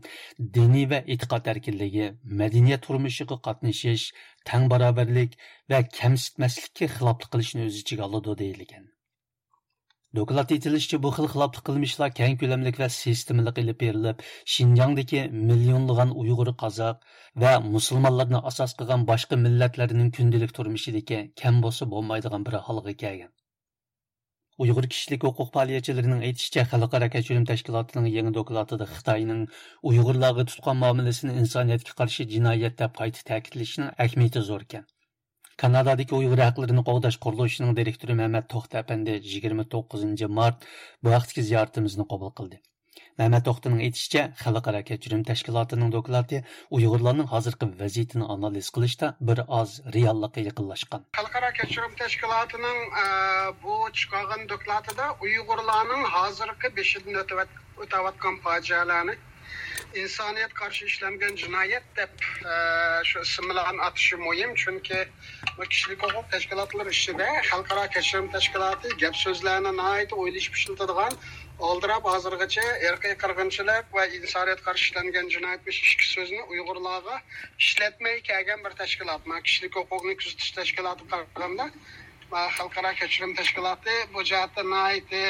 دىنىي ۋە ئېتىقاد ئەركىنلىكى، مەدەنىيەت تۇرمۇشىغا قاتنىشىش، تەڭ باراۋەرلىك ۋە كەمسىتمەسلىككە خىلاپلىق قىلىشنى ئۆز ئىچىگە ئالىدۇ، دېيىلگەن. دوكلاتتا ئېيتىلىشىچە، بۇ خىل خىلاپلىق قىلمىشلار كەڭ كۆلەملىك ۋە سىستېمىلىق ئېلىپ بېرىلىپ، شىنجاڭدىكى مىليونلىغان ئۇيغۇر، قازاق ۋە مۇسۇلمانلارنى ئاساس قىلغان باشقا مىللەتلەرنىڭ كۈندىلىك تۇرمۇشىدىكى كەم بولسا بولمايدىغان بىر ھالغا كەلگەن. ئۇيغۇر كىشىلىك ھوقۇق پائالىيەتچىلىرىنىڭ ئېيتىشىچە، خەلقئارا كەچۈرۈم تەشكىلاتىنىڭ يېڭى دوكلاتىدا خىتاينىڭ ئۇيغۇرلارغا تۇتقان مۇئامىلىسىنى ئىنسانىيەتكە قارشى جىنايەت دەپ قايتا تەكىتلىشىنىڭ ئەھمىيىتى زوركەن. كانادادىكى ئۇيغۇر ھەقلىرىنى قوغداش قۇرۇلۇشىنىڭ دىرېكتورى مەمەت توختى ئەپەندى يىگىرمە توققۇزىنچى مارت بۇ ھەقتىكى زىيارىتىمىزنى قوبۇل قىلدى. مەمەت توختىنىڭ ئېيتىشىچە، خەلقئارا كەچۈرۈم تەشكىلاتىنىڭ دوكلاتى ئۇيغۇرلارنىڭ ھازىرقى ۋەزىيىتىنى ئانالىز قىلىشتا بىر ئاز رېئاللىققا يېقىنلاشقان. خەلقئارا كەچۈرۈم تەشكىلاتىنىڭ، ئە، بۇ چىقارغان دوكلاتىدا ئۇيغۇرلارنىڭ ھازىرقى بېشىدىن ئۆتۈۋەت-، ئۆتەۋاتقان پاجىئەلەرنى، ئىنسانىيەت قارشى ئىشلەنگەن جىنايەت دەپ، ئە، شۇ ئىسىملارنى ئاتىشى مۇھىم، چۈنكى بۇ كىشىلىك ھوقۇق تەشكىلاتلىرى ئىچىدە خەلقئارا كەچۈرۈم تەشكىلاتى گەپ سۆزلەرنى ناھايىتى ئويلىشىپ ئىشلىتىدىغان، ئالدىراپ ھازىرغىچە ئىرقىي قىرغىنچىلىق ۋە ئىنسانىيەت قارشى ئىشلەنگەن جىنايەت بويىچە ئىككى سۆزنى ئۇيغۇرلارغا ئىشلەتمەي كەلگەن بىر تەشكىلات. مانا كىشىلىك ھوقۇقنى كۆزىتىش تەشكىلاتىغا قارىغاندا، مانا خەلقئارا كەچۈرۈم تەشكىلاتى بۇ جەھەتتە ناھايىتى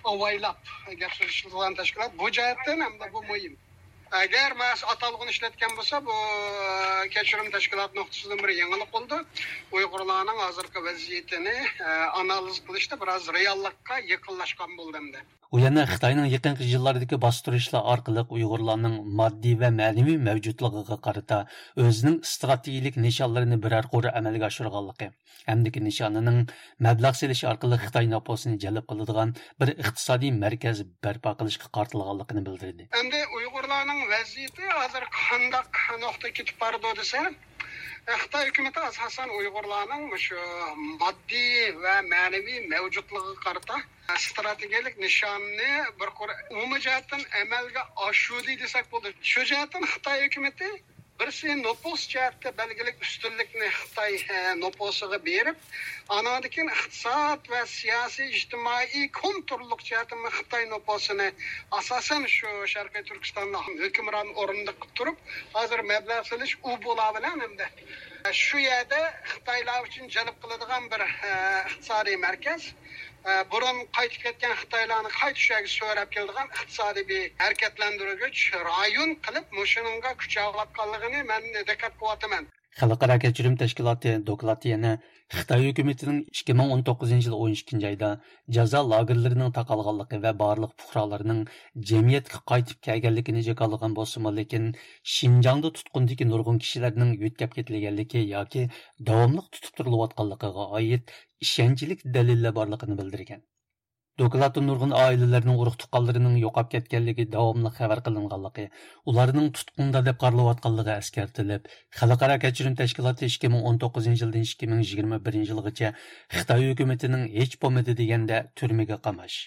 ئاۋايلاپ گەپ سۆزلىشىدىغان تەشكىلات. بۇ جەھەتتىن ھەمدە بۇ مۇھىم. ئەگەر مەسە ئاتالغۇنى ئىشلەتكەن بولسا، بۇ كەچۈرۈم تەشكىلاتى نۇقتىسىدىن بىر يېڭىلىق بولىدۇ. ئۇيغۇرلارنىڭ ھازىرقى ۋەزىيىتىنى ئانالىز قىلىشتا بىراز رېئاللىققا يېقىنلاشقان بولدى ئەمدى. ئۇ يەنە خىتاينىڭ يېقىنقى يىللاردىكى باستۇرۇشلار ئارقىلىق ئۇيغۇرلارنىڭ ماددىي ۋە مەنىۋى مەۋجۇتلۇقىغا قارىتا ئۆزىنىڭ ئىستراتېگىيىلىك نىشانلىرىنى بىرەر قۇر ئەمەلگە ئاشۇرغانلىقى، ئەمدىكى نىشانىنىڭ مەبلەغ سېلىش ئارقىلىق خىتاي نوپۇسىنى جەلپ قىلىدىغان بىر ئىقتىسادىي مەركەز بەرپا قىلىشقا قارىتىلغانلىقىنى بىلدۈردى. ئەمدى ئۇيغۇرلارنىڭ ۋەزىيىتى ھازىر قانداق نۇقتىغا كېتىپ بارىدۇ دېسە، خىتاي ھۆكۈمىتى ئاساسەن ئۇيغۇرلارنىڭ مۇشۇ ماددىي ۋە مەنىۋى مەۋجۇتلۇقىغا قارىتا ئىستراتېگىيەلىك نىشاننى بىر قۇر ئومۇمىي جەھەتتىن ئەمەلگە ئاشۇردى دېسەك بولىدۇ. شۇ جەھەتتىن خىتاي ھۆكۈمىتى بىرسى نوپۇس جەھەتتە بەلگىلىك ئۈستۈنلۈكنى خىتاي، ئە، نوپۇسىغا بېرىپ، ئانىڭدىن كېيىن ئىقتىساد ۋە سىياسىي، ئىجتىمائىي، كونتروللۇق جەھەتتىن خىتاي نوپۇسىنى ئاساسەن شۇ شەرقىي تۈركىستاندا ھۆكۈمران ئورۇندا قىلىپ تۇرۇپ، ھازىر مەبلەغ سېلىش ئۇ بولا بىلەن ئەمدى شۇ يەردە خىتايلار ئۈچۈن جەلپ قىلىدىغان بىر، ئە، ئىقتىسادىي مەركەز. ئە، بۇرۇن قايتىپ كەتكەن خىتايلارنى قايتا شۇ يەرگە سۆرەپ كېلىدىغان ئىقتىسادىي بىر ھەرىكەتلەندۈرگۈچ رايون قىلىپ، مۇشۇنىڭغا كۈچەۋاتقانلىقىنى مەن دىققەت قىلىۋاتىمەن. خەلقئارا كەچۈرۈم تەشكىلاتى دوكلاتى يەنە خىتاي ھۆكۈمىتىنىڭ ئىككى مىڭ ئون توققۇزىنچى يىل ئون ئىككىنچى ئايدا جازا لاگېرلىرىنىڭ تاقالغانلىقى ۋە بارلىق پۇقرالارنىڭ جەمئىيەتكە قايتىپ كەلگەنلىكىنى جاكارلىغان بولسىمۇ، لېكىن شىنجاڭدا تۇتقۇندىكى نۇرغۇن كىشىلەرنىڭ يۆتكەپ كېتىلگەنلىكى ياكى داۋاملىق تۇتۇپ تۇرۇلۇۋاتقانلىقىغا ئائىت ئىشەنچلىك دەلىللەر بارلىقىنى بىلدۈرگەن. دوكلاتتا نۇرغۇن ئائىلىلەرنىڭ ئۇرۇق-تۇغقانلىرىنىڭ يوقاپ كەتكەنلىكى داۋاملىق خەۋەر قىلىنغانلىقى، ئۇلارنىڭ تۇتقۇندا دەپ قارىلىۋاتقانلىقى ئەسكەرتىلىپ، خەلقئارا كەچۈرۈم تەشكىلاتى ئىككى مىڭ ئون توققۇزىنچى يىلدىن ئىككى مىڭ يىگىرمە بىرىنچى يىلغىچە خىتاي ھۆكۈمىتىنىڭ ھېچ بولمىدى دېگەندە تۈرمىگە قاماش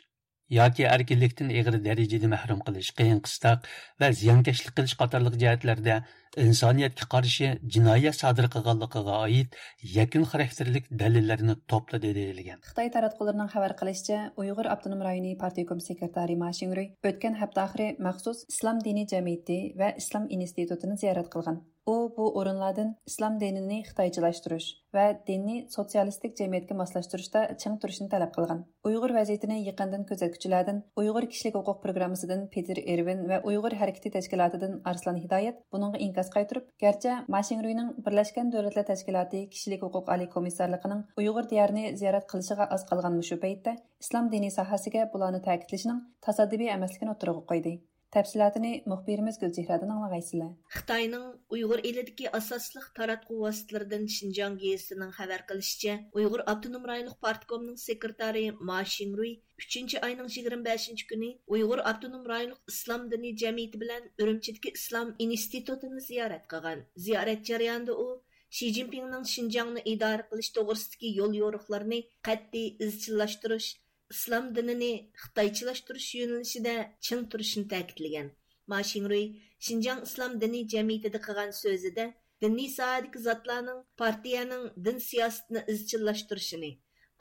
ياكى ئەركىنلىكتىن ئېغىر دەرىجىدە مەھرۇم قىلىش، قىيىن-قىستاق ۋە زىيانكەشلىك قىلىش قاتارلىق جەھەتلەردە ئىنسانىيەتكە قارشى جىنايەت سادىر قىلغانلىقىغا ئائىت يەكۈن خاراكتېرلىك دەلىللەرنى توپلىدى دېيىلگەن. خىتاي تاراتقۇلىرىنىڭ خەۋەر قىلىشىچە، ئۇيغۇر ئاپتونوم رايونى پارتكوم سېكرېتارى ما شىڭرۇي ئۆتكەن ھەپتە ئاخىرى مەخسۇس ئىسلام دىنىي جەمئىيىتى ۋە ئىسلام ئىنستىتۇتىنى زىيارەت قىلغان. ئۇ بۇ ئورۇنلاردىن ئىسلام دىنىنى خىتايچىلاشتۇرۇش ۋە دىننى سوتسىيالىستىك جەمئىيەتكە ماسلاشتۇرۇشتا چىڭ تۇرۇشنى تەلەپ قىلغان. ئۇيغۇر ۋەزىيىتىنى يېقىندىن كۆزەتكۈچىلەردىن ئۇيغۇر كىشىلىك ھوقۇق پروگراممىسىدىن پېتېر ئېرۋىن ۋە ئۇيغۇر ھەرىكىتى تەشكىلاتىدىن ئارسلان ھىدايەت بۇنىڭغا ئىنكاس قايتۇرۇپ، گەرچە ما شىڭرۇينىڭ بىرلەشكەن دۆلەتلەر تەشكىلاتى كىشىلىك ھوقۇق ئالىي كومىسسارلىقىنىڭ ئۇيغۇر دىيارىنى زىيارەت قىلىشىغا ئاز قالغان مۇشۇ پەيتتە ئىسلام دىنى ساھەسىگە بۇلارنى تەكىتلىشىنىڭ تاسادىپىي ئەمەسلىكىنى ئوتتۇرىغا قويدى. تەپسىلاتىنى مۇخبىرىمىز گۈلچېھرەدىن ئاڭلىغايسىلەر. خىتاينىڭ ئۇيغۇر ئېلىدىكى ئاساسلىق تاراتقۇ ۋاسىتىلىرىدىن شىنجاڭ گېزىتىنىڭ خەۋەر قىلىشىچە، ئۇيغۇر ئاپتونوم رايونلۇق پارتكومنىڭ سېكرېتارى ما شىڭرۇي ئۈچىنچى ئاينىڭ يىگىرمە بەشىنچى كۈنى ئۇيغۇر ئاپتونوم رايونلۇق ئىسلام دىنى جەمئىيىتى بىلەن ئۈرۈمچىدىكى ئىسلام ئىنستىتۇتىنى زىيارەت قىلغان. زىيارەت جەريانىدا ئۇ شى جىنپىڭنىڭ شىنجاڭنى ئىدارە قىلىش توغرىسىدىكى يوليورۇقلىرىنى قەتئىي ئىزچىللاشتۇرۇش، ئىسلام دىنىنى خىتايچىلاشتۇرۇش يۆنىلىشىدە چىڭ تۇرۇشىنى تەكىتلىگەن. ما شىڭرۇي شىنجاڭ ئىسلام دىنىي جەمئىيىتىدە قىلغان سۆزىدە، دىنىي ساھەدىكى زاتلارنىڭ پارتىيەنىڭ دىن سىياسىتىنى ئىزچىللاشتۇرۇشىنى،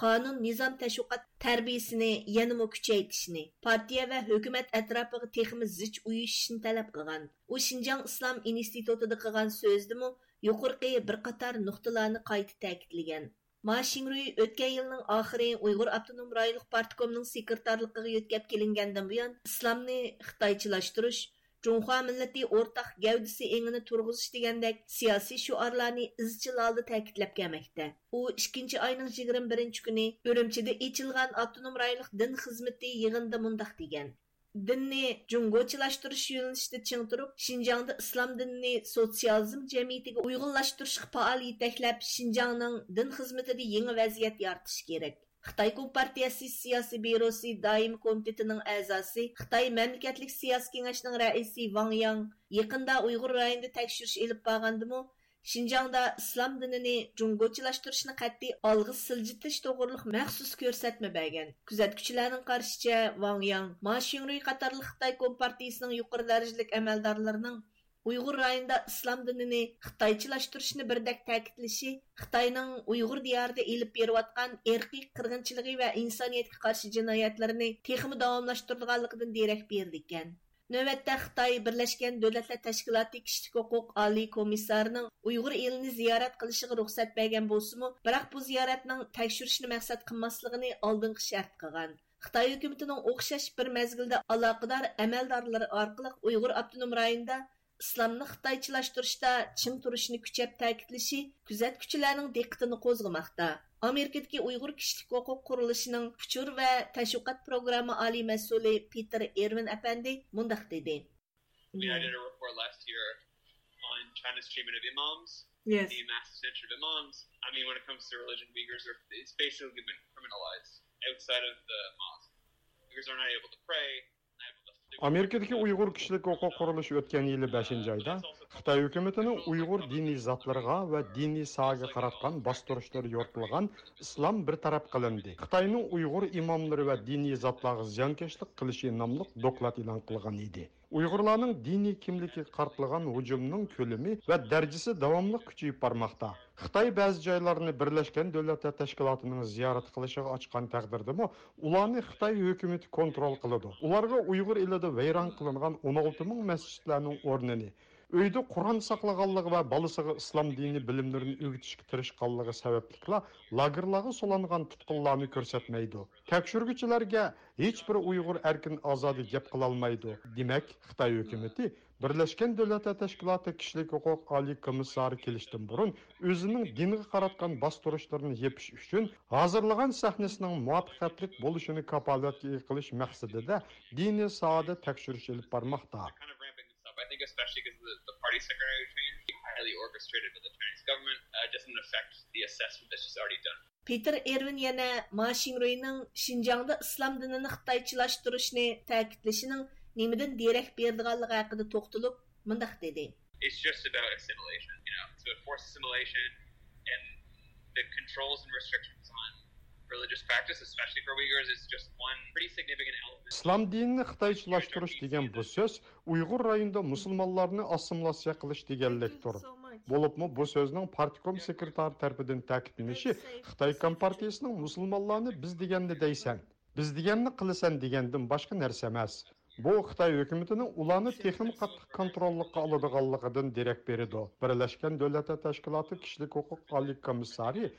قانۇن، نىزام، تەشۋىقات تەربىيىسىنى يەنىمۇ كۈچەيتىشىنى، پارتىيە ۋە ھۆكۈمەت ئەتراپىغا تېخىمۇ زىچ ئۇيۇشۇشنى تەلەپ قىلغان. ئۇ شىنجاڭ ئىسلام ئىنستىتۇتىدا قىلغان سۆزىدىمۇ يۇقىرىقى بىر قاتار نۇقتىلارنى قايتا تەكىتلىگەن. ما شىڭرۇي ئۆتكەن يىلنىڭ ئاخىرى ئۇيغۇر ئاپتونوم رايونلۇق پارتكومنىڭ سېكرېتارلىقىغا يۆتكەپ كېلىنگەندىن بۇيان، ئىسلامنى خىتايچىلاشتۇرۇش، جۇڭخۇا مىللىتى ئورتاق گەۋدىسى ئېڭىنى تۇرغۇزۇش دېگەندەك سىياسىي شوئارلارنى ئىزچىل ھالدا تەكىتلەپ كەلمەكتە. ئۇ ئىككىنچى ئاينىڭ يىگىرمە بىرىنچى كۈنى ئۈرۈمچىدە ئېچىلغان ئاپتونوم رايونلۇق دىن خىزمىتى يىغىنىدا مۇنداق دېگەن: دىننى جۇڭگوچىلاشتۇرۇش يۆنىلىشىدە چىڭ تۇرۇپ، شىنجاڭدا ئىسلام دىنىنى سوتسىيالىزم جەمئىيىتىگە ئۇيغۇنلاشتۇرۇشقا پائال يېتەكلەپ، شىنجاڭنىڭ دىن خىزمىتىدە يېڭى ۋەزىيەت يارىتىش كېرەك. خىتاي كومپارتىيەسى سىياسىي بيۇروسى دائىمىي كومىتېتىنىڭ ئەزاسى، خىتاي مەملىكەتلىك سىياسىي كېڭەشنىڭ رەئىسى ۋاڭ ياڭ يېقىندا ئۇيغۇر رايونىدا تەكشۈرۈش ئېلىپ بارغاندىمۇ، شىنجاڭدا ئىسلام دىنىنى جۇڭگوچىلاشتۇرۇشنى قەتئىي ئالغا سىلجىتىش توغرۇلۇق مەخسۇس كۆرسەتمە بەرگەن. كۆزەتكۈچىلەرنىڭ قارىشىچە، ۋاڭ ياڭ، ما شىڭرۇي قاتارلىق خىتاي كومپارتىيىسىنىڭ يۇقىرى دەرىجىلىك ئەمەلدارلىرىنىڭ ئۇيغۇر رايونىدا ئىسلام دىنىنى خىتايچىلاشتۇرۇشنى بىردەك تەكىتلىشى خىتاينىڭ ئۇيغۇر دىيارىدا ئېلىپ بېرىۋاتقان ئىرقىي قىرغىنچىلىقى ۋە ئىنسانىيەتكە قارشى جىنايەتلىرىنى تېخىمۇ داۋاملاشتۇرىدىغانلىقىدىن دېرەك بېرىدىكەن. نۆۋەتتە خىتاي بىرلەشكەن دۆلەتلەر تەشكىلاتى كىشىلىك ھوقۇق ئالىي كومىسسارىنىڭ ئۇيغۇر ئېلىنى زىيارەت قىلىشىغا رۇخسەت بەرگەن بولسىمۇ، بىراق بۇ زىيارەتنىڭ تەكشۈرۈشنى مەقسەت قىلماسلىقىنى ئالدىنقى شەرت قىلغان. خىتاي ھۆكۈمىتىنىڭ ئوخشاش بىر مەزگىلدە ئالاقىدار ئەمەلدارلىرى ئارقىلىق ئۇيغۇر ئاپتونوم رايونىدا ئىسلامنى خىتايچىلاشتۇرۇشتا چىڭ تۇرۇشىنى كۈچەپ تەكىتلىشى كۆزەتكۈچىلەرنىڭ دىققىتىنى قوزغىماقتا. ئامېرىكىدىكى ئۇيغۇر كىشىلىك ھوقۇق قۇرۇلۇشىنىڭ ئۇچۇر ۋە تەشۋىقات پروگرامما ئالىي مەسئۇلى پېتېر ئېرۋىن ئەپەندى مۇنداق دېدى. We had another report last year on China's treatment of imams, Yes. the mass detention of imams. I mean, when it comes to religion, Uyghurs are, it's basically been criminalized outside of the mosque. Uyghurs are not able to pray, not able to ئامېرىكىدىكى ئۇيغۇر كىشىلىك ھوقۇق قۇرۇلۇشى ئۆتكەن يىلى بەشىنچى ئايدا خىتاي ھۆكۈمىتىنىڭ ئۇيغۇر دىنىي زاتلىرىغا ۋە دىنىي ساھەگە قاراتقان باستۇرۇشلىرى يورۇتۇلغان ئىسلام بىر تەرەپ قىلىندى، خىتاينىڭ ئۇيغۇر ئىماملىرى ۋە دىنىي زاتلارغا زىيانكەشلىك قىلىشى ناملىق دوكلات ئېلان قىلغان ئىدى. ئۇيغۇرلارنىڭ دىنىي كىملىكىگە قارىتىلغان ھۇجۇمنىڭ كۆلىمى ۋە دەرىجىسى داۋاملىق كۈچىيىپ بارماقتا. خىتاي بەزى جايلارنى بىرلەشكەن دۆلەتلەر تەشكىلاتىنىڭ زىيارەت قىلىشىغا ئاچقان تەقدىردىمۇ، ئۇلارنى خىتاي ھۆكۈمىتى كونترول قىلىدۇ. ئۇلارغا ئۇيغۇر ئېلىدە ۋەيران قىلىنغان ئون ئالتە مىڭ مەسچىتلەرنىڭ ئورنىنى، ئۆيدە قۇرئان ساقلىغانلىقى ۋە بالىسىغا ئىسلام دىنى بىلىملىرىنى ئۆگىتىشكە تىرىشقانلىقى سەۋەبلىكلا لاگېرلارغا سولانغان تۇتقۇنلارنى كۆرسەتمەيدۇ. تەكشۈرگۈچىلەرگە ھېچبىر ئۇيغۇر ئەركىن ئازادە گەپ قىلالمايدۇ. دېمەك، خىتاي ھۆكۈمىتى بىرلەشكەن دۆلەتلەر تەشكىلاتى كىشىلىك ھوقۇق ئالىي كومىسسارى كېلىشتىن بۇرۇن ئۆزىنىڭ دىنغا قاراتقان باستۇرۇشلىرىنى يېپىش ئۈچۈن ھازىرلىغان سەھنىسىنىڭ مۇۋەپپەقىيەتلىك بولۇشىنى كاپالەتكە ئىگە قىلىش مەقسىتىدە دىنىي ساھەدە تەكشۈرۈش ئېلىپ بارماقتا. Kind of ramping this up. I think especially because the, the party secretary change, highly orchestrated by the Chinese government, uh, doesn't affect the assessment that's just already done. پېتېر ئېرۋىن يەنە ما شىڭرۇينىڭ شىنجاڭدا ئىسلام دىنىنى خىتايچىلاشتۇرۇشنى تەكىتلىشىنىڭ نېمىدىن دېرەك بېرىدىغانلىقى ھەققىدە توختىلىپ، مۇنداق دېدى. It's just about assimilation, you know, it's about forced assimilation and the controls and restrictions on religious practice, especially for Uyghurs, is just one pretty significant element. ئىسلام دىنىنى خىتايچىلاشتۇرۇش دېگەن بۇ سۆز ئۇيغۇر رايونىدا مۇسۇلمانلارنى ئاسسىمىلياتسىيە قىلىش دېگەنلىكتۇر. بولۇپمۇ بۇ سۆزنىڭ پارتكوم سېكرېتارى تەرىپىدىن تەكىتلىنىشى خىتاي كومپارتىيىسىنىڭ مۇسۇلمانلارنى بىز دېگەننى دەيسەن، بىز دېگەننى قىلىسەن دېگەندىن باشقا نەرسە ئەمەس. بۇ خىتاي ھۆكۈمىتىنىڭ ئۇلارنى تېخىمۇ قاتتىق كونتروللۇققا ئالىدىغانلىقىدىن دېرەك بېرىدۇ. بىرلەشكەن دۆلەتلەر تەشكىلاتى كىشىلىك ھوقۇق ئالىي كومىسسارى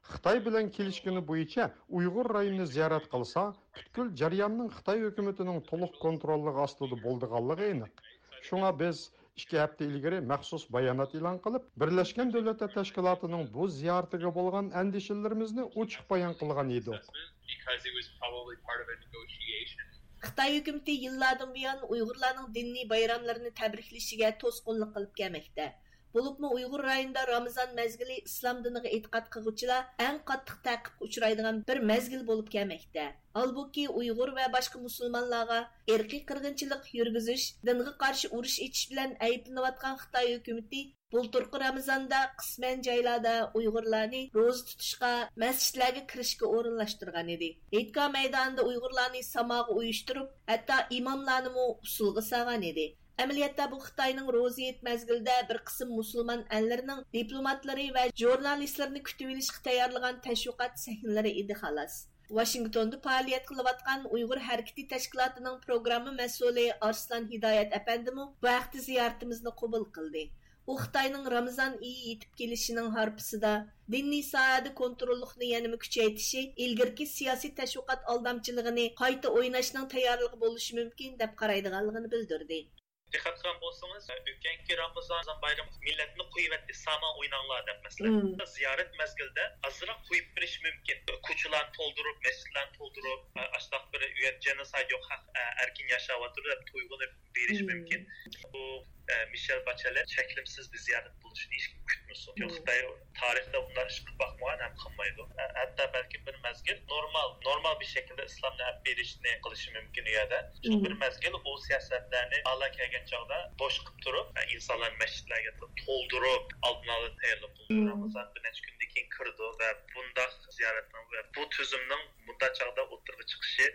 خىتاي بىلەن كېلىشكىنى بويىچە ئۇيغۇر رايونىنى زىيارەت قىلسا، پۈتكۈل جەرياننىڭ خىتاي ھۆكۈمىتىنىڭ تولۇق كونتروللۇقى ئاستىدا بولىدىغانلىقى ئېنىق. شۇڭا بىز ئىككى ھەپتە ئىلگىرى مەخسۇس بايانات ئېلان قىلىپ، بىرلەشكەن دۆلەتلەر تەشكىلاتىنىڭ بۇ زىيارىتىگە بولغان ئەندىشىلىرىمىزنى ئوچۇق بايان قىلغان ئىدۇق. Because it was probably part of a negotiation. خىتاي ھۆكۈمىتى يىللاردىن بۇيان ئۇيغۇرلارنىڭ دىنىي بايراملىرىنى تەبرىكلىشىگە توسقۇنلۇق قىلىپ كەلمەكتە. بولۇپمۇ ئۇيغۇر رايونىدا رامىزان مەزگىلى ئىسلام دىنىغا ئېتىقاد قىلغۇچىلار ئەڭ قاتتىق تەقىبكە ئۇچرايدىغان بىر مەزگىل بولۇپ كەلمەكتە. ھالبۇكى، ئۇيغۇر ۋە باشقا مۇسۇلمانلارغا ئىرقىي قىرغىنچىلىق يۈرگۈزۈش، دىنغا قارشى ئۇرۇش ئېچىش بىلەن ئەيىبلىنىۋاتقان خىتاي ھۆكۈمىتى بۇلتۇرقى رامىزاندا قىسمەن جايلاردا ئۇيغۇرلارنى روزا تۇتۇشقا، مەسچىتلەرگە كىرىشكە ئورۇنلاشتۇرغان ئىدى. ھېيتگاھ مەيدانىدا ئۇيغۇرلارنى ساماغا ئۇيۇشتۇرۇپ، ھەتتا ئىماملارنىمۇ ئۇسسۇلغا سالغان ئىدى. ئەمەلىيەتتە بۇ خىتاينىڭ روزا ھېيت مەزگىلىدە بىر قىسىم مۇسۇلمان ئەللىرىنىڭ دىپلوماتلىرى ۋە ژۇرنالىستلىرىنى كۈتۈۋېلىشقا تەييارلىغان تەشۋىقات سەھنىلىرى ئىدى، خالاس. ۋاشىنگتوندا پائالىيەت قىلىۋاتقان ئۇيغۇر ھەرىكىتى تەشكىلاتىنىڭ پروگرامما مەسئۇلى ئارسلان ھىدايەت ئەپەندىمۇ بۇ ھەقتە زىيارىتىمىزنى قوبۇل قىلدى. ئۇ خىتاينىڭ رامىزان ئېيى يېتىپ كېلىشىنىڭ ھارپىسىدا دىنىي ساھەدە كونتروللۇقنى يەنىمۇ كۈچەيتىشى ئىلگىرىكى سىياسىي تەشۋىقات ئالدامچىلىقىنى قايتا ئويناشنىڭ تەييارلىقى بولۇشى مۇمكىن، دەپ قارايدىغانلىقىنى بىلدۈردى. دىققەت قىلغان بولسىڭىز، ئۆتكەنكى رامىزان بايرىمى مىللەتنى قويۇۋەتتى، سامان ئويناڭلار دەپ، مەسىلەن. مم. زىيارەت مەزگىلىدە ئازراق قويۇپ بېرىش مۇمكىن. كوچىلارنى تولدۇرۇپ، مەسچىتلەرنى تولدۇرۇپ، ئاشۇنداق بىر ئۇ يەردە جېنوسايد يوق، خەق ئەركىن ياشاۋاتىدۇ دەپ تۇيغۇنى بېرىش مم. مۇمكىن. بۇ، مە-، مىشېل باچېلەت چەكلىمىسىز بىر زىيارەت بولۇشىنى ھېچكىم كۈتمىسۇن. چۈنكى مم. خىتاي تارىختا بۇنداق ئىش قىلىپ باقمىغان ھەم قىلمايدۇ. ھە-، ھەتتا بەلكىم بىر مەزگىل نورمال، نورمال بىر شەكىلدە ئىسلامنى ئەپ بېرىشنى قىلىشى مۇمكىن ئۇ يەردە. شۇ مم. بىر مەزگىل ئۇ سىياسەتلەرنى ھالا كەلگەن چاغدا بوش قىلىپ تۇرۇپ، ئىنسانلارنى مەسچىتلەرگە تولدۇرۇپ، ئالدىن ئالا تەييارلىق قىلىدۇ. مم. رامىزان بىر نەچچە كۈندىن كېيىن كىرىدۇ ۋە بۇنداق زىيارەتنىڭ ۋە بۇ تۈزۈمنىڭ بۇنداق چاغدا ئوتتۇرىغا چىقىشى،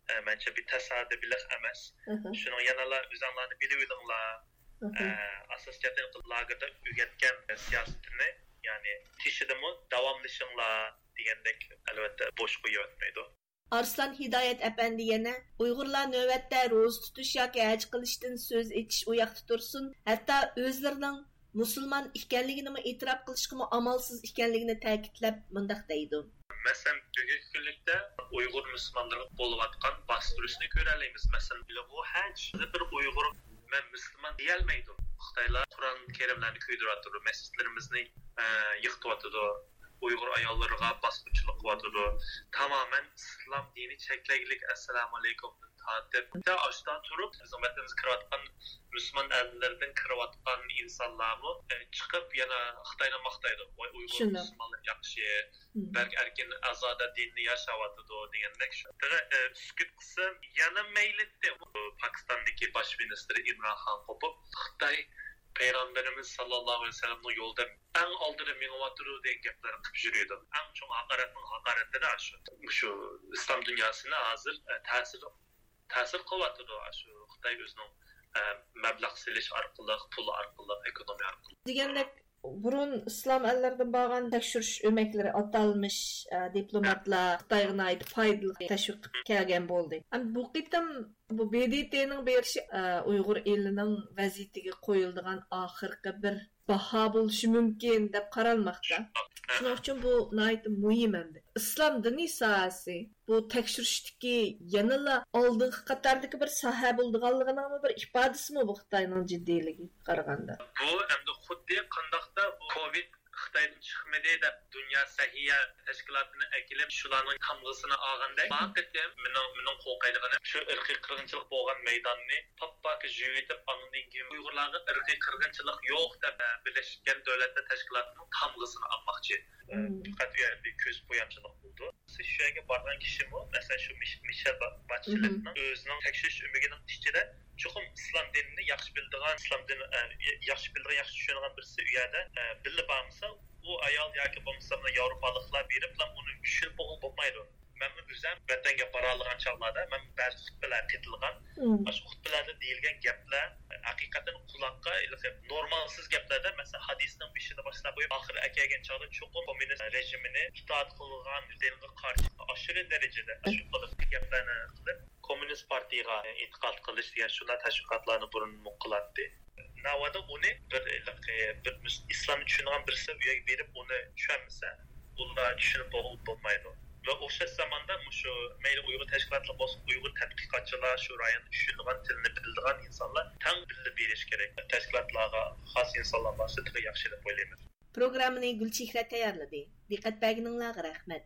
ئە، مەنچە بىر تاسادىپىيلىق ئەمەس. مم. شۇنىڭ يەنىلا ئۆزۈڭلارنى بىلىۋېلىڭلار. مم. ئە، ئاساسىي جەھەتتىن لاگېردا ئۆگەتكەن سىياسىتىنى، يەنى تېشىدىمۇ داۋاملىشىڭلار دېگەندەك، ئەلۋەتتە، بوش قويۇۋەتمەيدۇ. ئارسلان ھىدايەت ئەپەندى يەنە، ئۇيغۇرلار نۆۋەتتە روزا تۇتۇش ياكى ھەج قىلىشتىن سۆز ئېچىش ئۇ ياقتا تۇرسۇن، ھەتتا ئۆزلىرىنىڭ مۇسۇلمان ئىكەنلىكىنىمۇ ئېتىراپ قىلىشقىمۇ ئامالسىز ئىكەنلىكىنى تەكىتلەپ مۇنداق دەيدۇ. مەسىلەن، بۈگۈنكى كۈنلۈكتە ئۇيغۇر مۇسۇلمانلىرىغا بولۇۋاتقان باستۇرۇشنى كۆرەلەيمىز. مەسىلەن، بىلىغۇ ھەج بىر ئۇيغۇر «مەن مۇسۇلمان» دېيەلمەيدۇ. خىتايلار قۇرئان كەرىملەرنى كۆيدۈرۈۋاتىدۇ، مەسچىتلىرىمىزنى، ئە، يىقىتىۋاتىدۇ، ئۇيغۇر ئاياللىرىغا باسقۇنچىلىق قىلىۋاتىدۇ. تامامەن ئىسلام دىنى چەكلەيلىك، ئەسسالامۇئەلەيكۇمدىن تارتىپ، ھەتتا ئاشتا تۇرۇپ، بىزنىڭ ۋەتىنىمىزگە كىرىۋاتقان مۇسۇلمان ئەللىرىدىن كىرىۋاتقان ئىنسانلارمۇ، ئە، چىقىپ يەنە خىتاينى ماختايدۇ. «ۋاي، ئۇيغۇر شۇنداق. مۇسۇلمانلار ياخشى، مم. بەك ئەركىن، ئازادە دىننى ياشاۋاتىدۇ» دېگەندەك. شۇ، ئە، سۈكۈت قىلسا يەنە مەيلىتتى. پاكىستاندىكى باش مىنىستىر ئىمران خان قوپۇپ، «خىتاي پەيغەمبىرىمىز ساللاللاھۇ ئەلەيھى ۋەسەللەمنىڭ يولىدا ئەڭ ئالدىدا مېڭىۋاتىدۇ» دېگەن گەپلەرنى قىلىپ يۈرىدۇ. ئەڭ چوڭ ھاقارەتنىڭ ھاقارىتىدە شۇ. مۇشۇ ئىسلام دۇنياسىنى ھازىر، ئە، تەسىر، تەسىر قىلىۋاتىدۇ شۇ خىتاي ئۆزىنىڭ، ئە، مەبلەغ سېلىش ئارقىلىق، پۇل ئارقىلىق، ئېكونومىيە ئارقىلىق. دېگەندەك، بۇرۇن ئىسلام ئەللىرىدىن بارغان تەكشۈرۈش ئۆمەكلىرى، ئاتالمىش، ئە، دىپلوماتلار خىتايغا ناھايىتى پايدىلىق تەشۋىق قىلىپ كەلگەن بولدى. ئەمما بۇ قېتىم بۇ ب د ت نىڭ بېرىشى، ئە، ئۇيغۇر ئېلىنىڭ ۋەزىيىتىگە قويۇلىدىغان ئاخىرقى بىر باھا بولۇشى مۇمكىن دەپ قارالماقتا. شۇنىڭ ئۈچۈن بۇ ناھايىتى مۇھىم ئەمدى. ئىسلام دىنى ساھەسى بۇ تەكشۈرۈشتىكى يەنىلا ئالدىنقى قاتاردىكى بىر ساھە بولىدىغانلىقىنىڭمۇ بىر ئىپادىسىمۇ بۇ خىتاينىڭ جىددىيلىكىگە قارىغاندا؟ بۇ ئەمدى خۇددى قانداقتا بۇ كوۋىد خىتايدىن چىقمىدى دەپ دۇنيا سەھىيە تەشكىلاتىنى ئەكېلىپ، شۇلارنىڭ تامغىسىنى ئالغاندەك، بۇ قېتىم مېنىڭ، مېنىڭ قورقايدىغىنىم شۇ ئىرقىي قىرغىنچىلىق بولغان مەيداننى پاپپاكى يۇيۇۋېتىپ، ئاندىن كېيىن ئۇيغۇرلارغا ئىرقىي قىرغىنچىلىق يوق دەپ، ئە، بىرلەشكەن دۆلەتلەر تەشكىلاتىنىڭ تامغىسىنى ئالماقچى. مم. پەقەت ئۇ يەردە كۆز بويامچىلىق بولىدۇ. شۇ يەرگە بارغان كىشىمۇ، مەسىلەن، شۇ مىش-، مىشېل با-، مم. باتچېلېتنىڭ ئۆزىنىڭ تەكشۈرۈش ئۆمىكىنىڭ ئىچىدە چوقۇم ئىسلام دىنىنى ياخشى بىلىدىغان، ئىسلام دىنى، ئە، ياخشى بىلىدىغان، ياخشى چۈشىنىدىغان بىرسى ئۇ يەردە، ئە، بىللە بارمىسا، ئۇ ئايال ياكى بولمىسا مۇنۇ ياۋروپالىقلار بېرىپلا ئۇنى چۈشىنىپ بولغىلى بولمايدۇ. مەنمۇ ئۆزۈم ۋەتەنگە بارالىغان چاغلاردا مەن بەزى خۇتبىلەرگە قېتىلغان. مم. ئاشۇ خۇتبىلەردە دېيىلگەن گەپلەر ھەقىقەتەن قۇلاققا ھېلىقى نورمالسىز گەپلەردە، مەسىلەن، ھەدىسنىڭ بېشىدا باشلاپ قويۇپ، ئاخىرىغا كەلگەن چاغدا چوقۇم كوممۇنىست رېژىمىنى ئىتائەت قىلغان دىنغا قارشى، ئاشۇ دەرىجىدە ئاشۇ قىلىپ گەپلەرنى قىلىپ، كوممۇنىست پارتىيىغا ئېتىقاد قىلىش دېگەن شۇنداق تەشۋىقاتلارنى بۇرۇنمۇ قىلاتتى. ناۋادا ئۇنى بىر، بىر مۇس-، ئىسلامنى چۈشىنىدىغان بىرسى ئۇ يەرگە بېرىپ ئۇنى چۈشەنمىسە، ئۇلار چۈشىنىپ بولغىلى بولمايدۇ. ۋە ئوخشاش زاماندا مۇشۇ مەيلى ئۇيغۇر تەشكىلاتلىرى بولسۇن، ئۇيغۇر تەتقىقاتچىلار، شۇ رايوندا چۈشىنىدىغان، تىلنى بىلىدىغان ئىنسانلار تەڭ بىللە بېرىش كېرەك. تەشكىلاتلارغا خاس ئىنسانلار بارسا تېخى ياخشى دەپ ئويلايمەن. پروگراممىنى گۈلچېھرە تەييارلىدى. دىققەت بەرگىنىڭلارغا رەھمەت.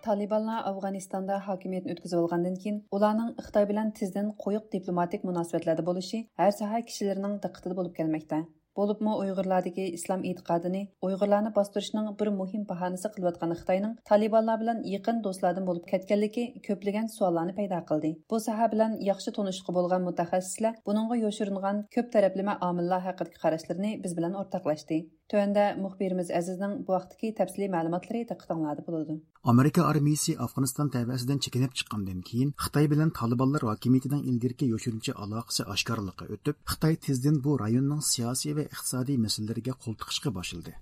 تالىبانلار ئافغانىستاندا ھاكىمىيەتنى ئۆتكۈزۈۋالغاندىن كېيىن، ئۇلارنىڭ خىتاي بىلەن تېزدىن قويۇق دىپلوماتىك مۇناسىۋەتلەردە بولۇشى ھەر ساھە كىشىلىرىنىڭ دىققىتىدە بولۇپ كەلمەكتە. بولۇپمۇ ئۇيغۇرلاردىكى ئىسلام ئېتىقادىنى ئۇيغۇرلارنى باستۇرۇشنىڭ بىر مۇھىم باھانىسى قىلىۋاتقان خىتاينىڭ تالىبانلار بىلەن يېقىن دوستلاردىن بولۇپ كەتكەنلىكى كۆپلىگەن سوئاللارنى پەيدا قىلدى. بۇ ساھە بىلەن ياخشى تونۇشلۇقى بولغان مۇتەخەسسىسلەر بۇنىڭغا يوشۇرۇنغان كۆپ تەرەپلىمە ئامىللار ھەققىدىكى قاراشلىرىنى بىز بىلەن ئورتاقلاشتى. تۆۋەندە مۇخبىرىمىز ئەزىزنىڭ بۇ ھەقتىكى تەپسىلىي مەلۇماتلىرى دىققىتىڭلاردا بولىدۇ. ئامېرىكا ئارمىيىسى ئافغانىستان تەۋەسىدىن چېكىنىپ چىققاندىن كېيىن، خىتاي بىلەن تالىبانلار ھاكىمىيىتىنىڭ ئىلگىرىكى يوشۇرۇنچە ئالاقىسى ئاشكارىلىققا ئۆتۈپ، خىتاي تېزدىن بۇ رايوننىڭ سىياسىي ۋە ئىقتىسادىي مەسىلىلىرىگە قول تىقىشقا باشلىدى.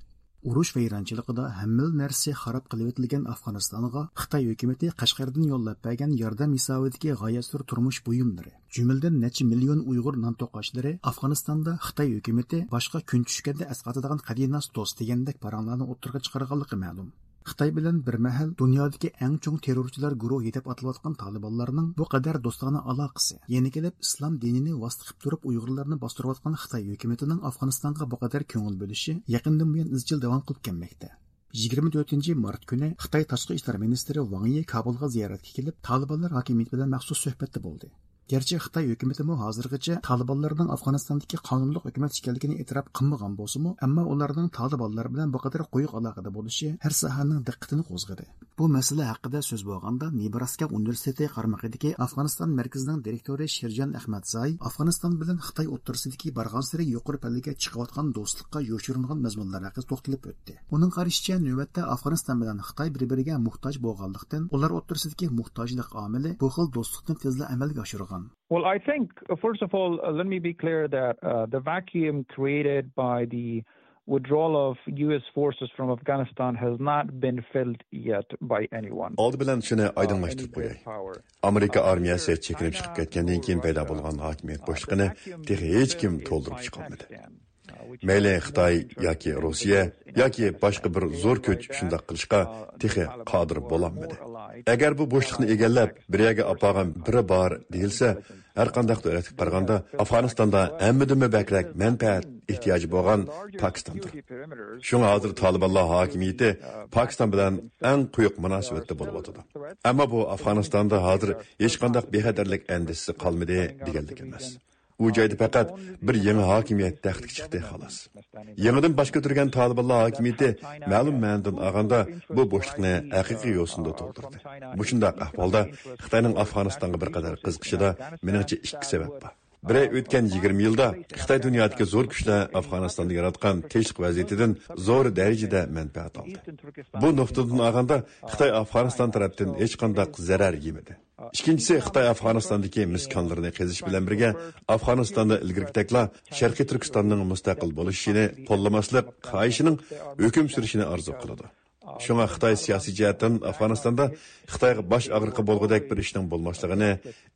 ئۇرۇش ۋەيرانچىلىقىدا ھەممىلا نەرسە خاراب قىلىۋېتىلگەن ئافغانىستانغا خىتاي ھۆكۈمىتى قەشقەردىن يوللاپ بەرگەن ياردەم ھېسابىدىكى غايەت زور تۇرمۇش بۇيۇملىرى، جۈملىدىن نەچچە مىليون ئۇيغۇر نان توقاچلىرى ئافغانىستاندا خىتاي ھۆكۈمىتى باشقا كۈن چۈشكەندە ئەسقاتىدىغان قەدىناس دوست دېگەندەك پاراڭلارنى ئوتتۇرىغا چىقارغانلىقى مەلۇم. خىتاي بىلەن بىر مەھەل دۇنيادىكى ئەڭ چوڭ تېررورچىلار گۇرۇھى دەپ ئاتىلىۋاتقان تالىبانلارنىڭ بۇ قەدەر دوستانە ئالاقىسى، يەنە كېلىپ ئىسلام دىنىنى ۋاسىتە قىلىپ تۇرۇپ ئۇيغۇرلارنى باستۇرۇۋاتقان خىتاي ھۆكۈمىتىنىڭ ئافغانىستانغا بۇ قەدەر كۆڭۈل بۆلۈشى يېقىندىن بۇيان ئىزچىل داۋام قىلىپ كەلمەكتە. يىگىرمە تۆتىنچى مارت كۈنى خىتاي تاشقى ئىشلار مىنىستىرى ۋاڭ يى كابۇلغا زىيارەتكە كېلىپ، تالىبانلار ھاكىمىيىتى بىلەن مەخسۇس سۆھبەتتە بولدى. گەرچە خىتاي ھۆكۈمىتىمۇ ھازىرغىچە تالىبانلارنىڭ ئافغانىستاندىكى قانۇنلۇق ھۆكۈمەت ئىكەنلىكىنى ئېتىراپ قىلمىغان بولسىمۇ، ئەمما ئۇلارنىڭ تالىبانلار بىلەن بۇ قەدەر قويۇق ئالاقىدە بولۇشى ھەر ساھەنىڭ دىققىتىنى قوزغىدى. بۇ مەسىلە ھەققىدە سۆز بولغاندا، نېبراسكا ئۇنىۋېرسىتېتى قارمىقىدىكى ئافغانىستان مەركىزىنىڭ دىرېكتورى شېرجان ئەخمەتزاي ئافغانىستان بىلەن خىتاي ئوتتۇرىسىدىكى بارغانسېرى يۇقىرى پەللىگە چىقىۋاتقان دوستلۇققا يوشۇرۇنغان مەزمۇنلار ھەققىدە توختىلىپ ئۆتتى. ئۇنىڭ قارىشىچە، نۆۋەتتە ئافغانىستان بىلەن خىتاي بىر-بىرىگە موھتاج بولغانلىقتىن، ئۇلار ئوتتۇرىسىدىكى موھتاجلىق ئامىلى بۇ خىل دوستلۇقنى تېزلا ئەمەلگە ئاشۇرغان. Well, I think, uh, first of all, uh, let me be clear that, uh, the vacuum created by the withdrawal of U S forces from Afghanistan has not been filled yet by anyone. ئالدى بىلەن شۇنى ئايدىڭلاشتۇرۇپ قوياي. ئامېرىكا ئارمىيەسى چېكىنىپ چىقىپ كەتكەندىن كېيىن پەيدا بولغان ھاكىمىيەت بوشلۇقىنى تېخى ھېچكىم تولدۇرۇپ چىقالمىدى. مەيلى خىتاي ياكى روسىيە ياكى باشقا بىر زور كۈچ شۇنداق قىلىشقا تېخى قادىر بولالمىدى. ئەگەر بۇ بوشلۇقنى ئىگىلەپ، بىر يەرگە ئاپارغان بىرى بار دېيىلسە، ھەر قانداق دۆلەتكە قارىغاندا ئافغانىستاندا ھەممىدىنمۇ بەكرەك مەنپەئەت ئېھتىياجى بولغان پاكىستاندۇر. شۇڭا ھازىر تالىبانلار ھاكىمىيىتى پاكىستان بىلەن ئەڭ قويۇق مۇناسىۋەتتە بولۇۋاتىدۇ. ئەمما بۇ ئافغانىستاندا ھازىر ھېچقانداق بىخەتەرلىك ئەندىشىسى قالمىدى دېگەنلىك ئەمەس. ئۇ جايدا پەقەت بىر يېڭى ھاكىمىيەت تەختكە چىقتى، خالاس. يېڭىدىن باش كۆتۈرگەن تالىبانلار ھاكىمىيىتى مەلۇم مەنىدىن ئالغاندا بۇ بوشلۇقنى ھەقىقىي يوسۇندا تولدۇردى. مۇشۇنداق ئەھۋالدا خىتاينىڭ ئافغانىستانغا بىر قەدەر قىزىقىشىدا مېنىڭچە ئىككى سەۋەب بار. بىرى، ئۆتكەن يىگىرمە يىلدا خىتاي دۇنيادىكى زور كۈچلەر ئافغانىستاندا ياراتقان تىنچلىق ۋەزىيىتىدىن زور دەرىجىدە مەنپەئەت ئالدى. بۇ نۇقتىدىن ئالغاندا خىتاي ئافغانىستان تەرەپتىن ھېچقانداق زەرەر يېمىدى. ئىككىنچىسى، خىتاي ئافغانىستاندىكى مىس كانلىرىنى قېزىش بىلەن بىرگە، ئافغانىستاندا ئىلگىرىكىدەكلا شەرقىي تۈركىستاننىڭ مۇستەقىل بولۇشىنى قوللىماسلىق خاھىشىنىڭ ھۆكۈم سۈرۈشىنى ئارزۇ قىلىدۇ. شۇڭا خىتاي سىياسىي جەھەتتىن ئافغانىستاندا خىتايغا باش ئاغرىقى بولغۇدەك بىر ئىشنىڭ بولماسلىقىنى،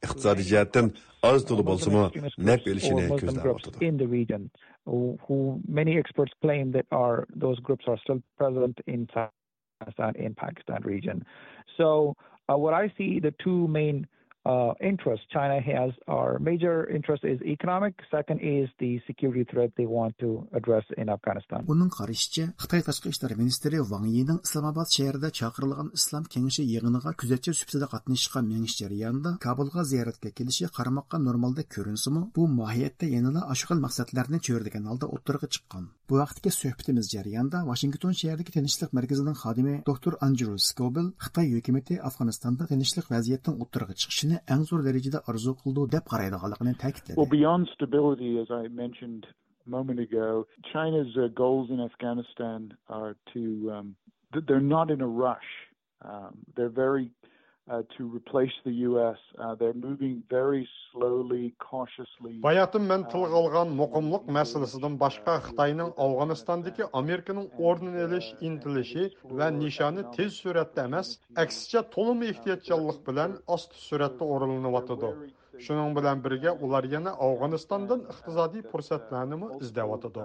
ئىقتىسادىي جەھەتتىن ئاز تولا بولسىمۇ نەپ ئېلىشىنى كۆزلەۋاتىدۇ. In the region, who, who many experts claim that are, those groups are still present in Afghanistan, in Pakistan region. So, uh, what I see, the two main, uh, interests China has, are major interest is economic, second is the security threat they want to address in Afghanistan. ئۇنىڭ قارىشىچە، خىتاي تاشقى ئىشلار مىنىستىرى ۋاڭ يىنىڭ ئىسلامئاباد شەھىرىدە چاقىرىلغان ئىسلام كېڭىشى يىغىنىغا كۆزەتچى سۈپىتىدە قاتنىشىشقا مېڭىش جەريانىدا كابۇلغا زىيارەتكە كېلىشى قارىماققا نورمالدەك كۆرۈنسىمۇ، بۇ ماھىيەتتە يەنىلا ئاشۇ خىل مەقسەتلەرنى چۆرىدىگەن ھالدا ئوتتۇرىغا چىققان. بۇ ھەقتىكى سۆھبىتىمىز جەريانىدا ۋاشىنگتون شەھىرىدىكى تىنچلىق مەركىزىنىڭ خادىمى دوكتور ئاندرو سكوبېل خىتاي ھۆكۈمىتى ئافغانىستاندا تىنچلىق ۋەزىيەتنىڭ ئوتتۇرىغا چىقىشىنى ئەڭ زور دەرىجىدە ئارزۇ قىلىدۇ دەپ قارايدىغانلىقىنى تەكىتلىدى. Well, beyond stability, as I mentioned a moment ago, China's uh, goals in Afghanistan are to, um, th- they're not in a rush. Um, they're very, uh, to replace the U S. Uh, they're moving very slowly, cautiously. باياتىن مەن تىلغا ئالغان مۇقىملىق مەسىلىسىدىن باشقا، خىتاينىڭ ئافغانىستاندىكى ئامېرىكىنىڭ ئورنىنى ئېلىش ئىنتىلىشى ۋە نىشانى تېز سۈرئەتتە ئەمەس، ئەكسىچە تولىمۇ ئېھتىياتچانلىق بىلەن ئاستا سۈرئەتتە ئورۇنلىنىۋاتىدۇ. شۇنىڭ بىلەن بىرگە، ئۇلار يەنە ئافغانىستاندىن ئىقتىسادىي پۇرسەتلەرنىمۇ ئىزدەۋاتىدۇ.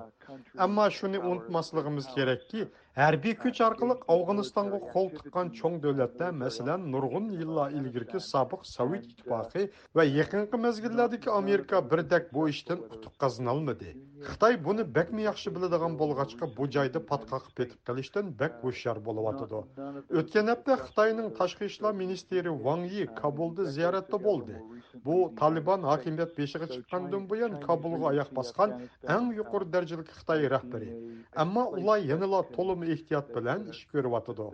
ئەمما شۇنى ئۇنتۇماسلىقىمىز كېرەككى، ھەربىي كۈچ ئارقىلىق ئافغانىستانغا قول تىققان چوڭ دۆلەتلەر، مەسىلەن، نۇرغۇن يىللار ئىلگىرىكى سابىق سوۋېت ئىتتىپاقى ۋە يېقىنقى مەزگىللەردىكى ئامېرىكا بىردەك بۇ ئىشتىن ئۇتۇق قازىنالمىدى. خىتاي بۇنى بەكمۇ ياخشى بىلىدىغان بولغاچقا، بۇ جايدا پاتقاققا پېتىپ قېلىشتىن بەك ھوشيار بولۇۋاتىدۇ. ئۆتكەن ھەپتە خىتاينىڭ تاشقى ئىشلار مىنىستىرى ۋاڭ يى كابۇلدا زىيارەتتە بولدى. بۇ تالىبان ھاكىمىيەت بېشىغا چىققاندىن بۇيان كابۇلغا ئاياق باسقان ئەڭ يۇقىرى دەرىجىلىك خىتاي رەھبىرى. ئەمما ئۇلار يەنىلا تولىمۇ ئېھتىيات بىلەن ئىش كۆرۈۋاتىدۇ.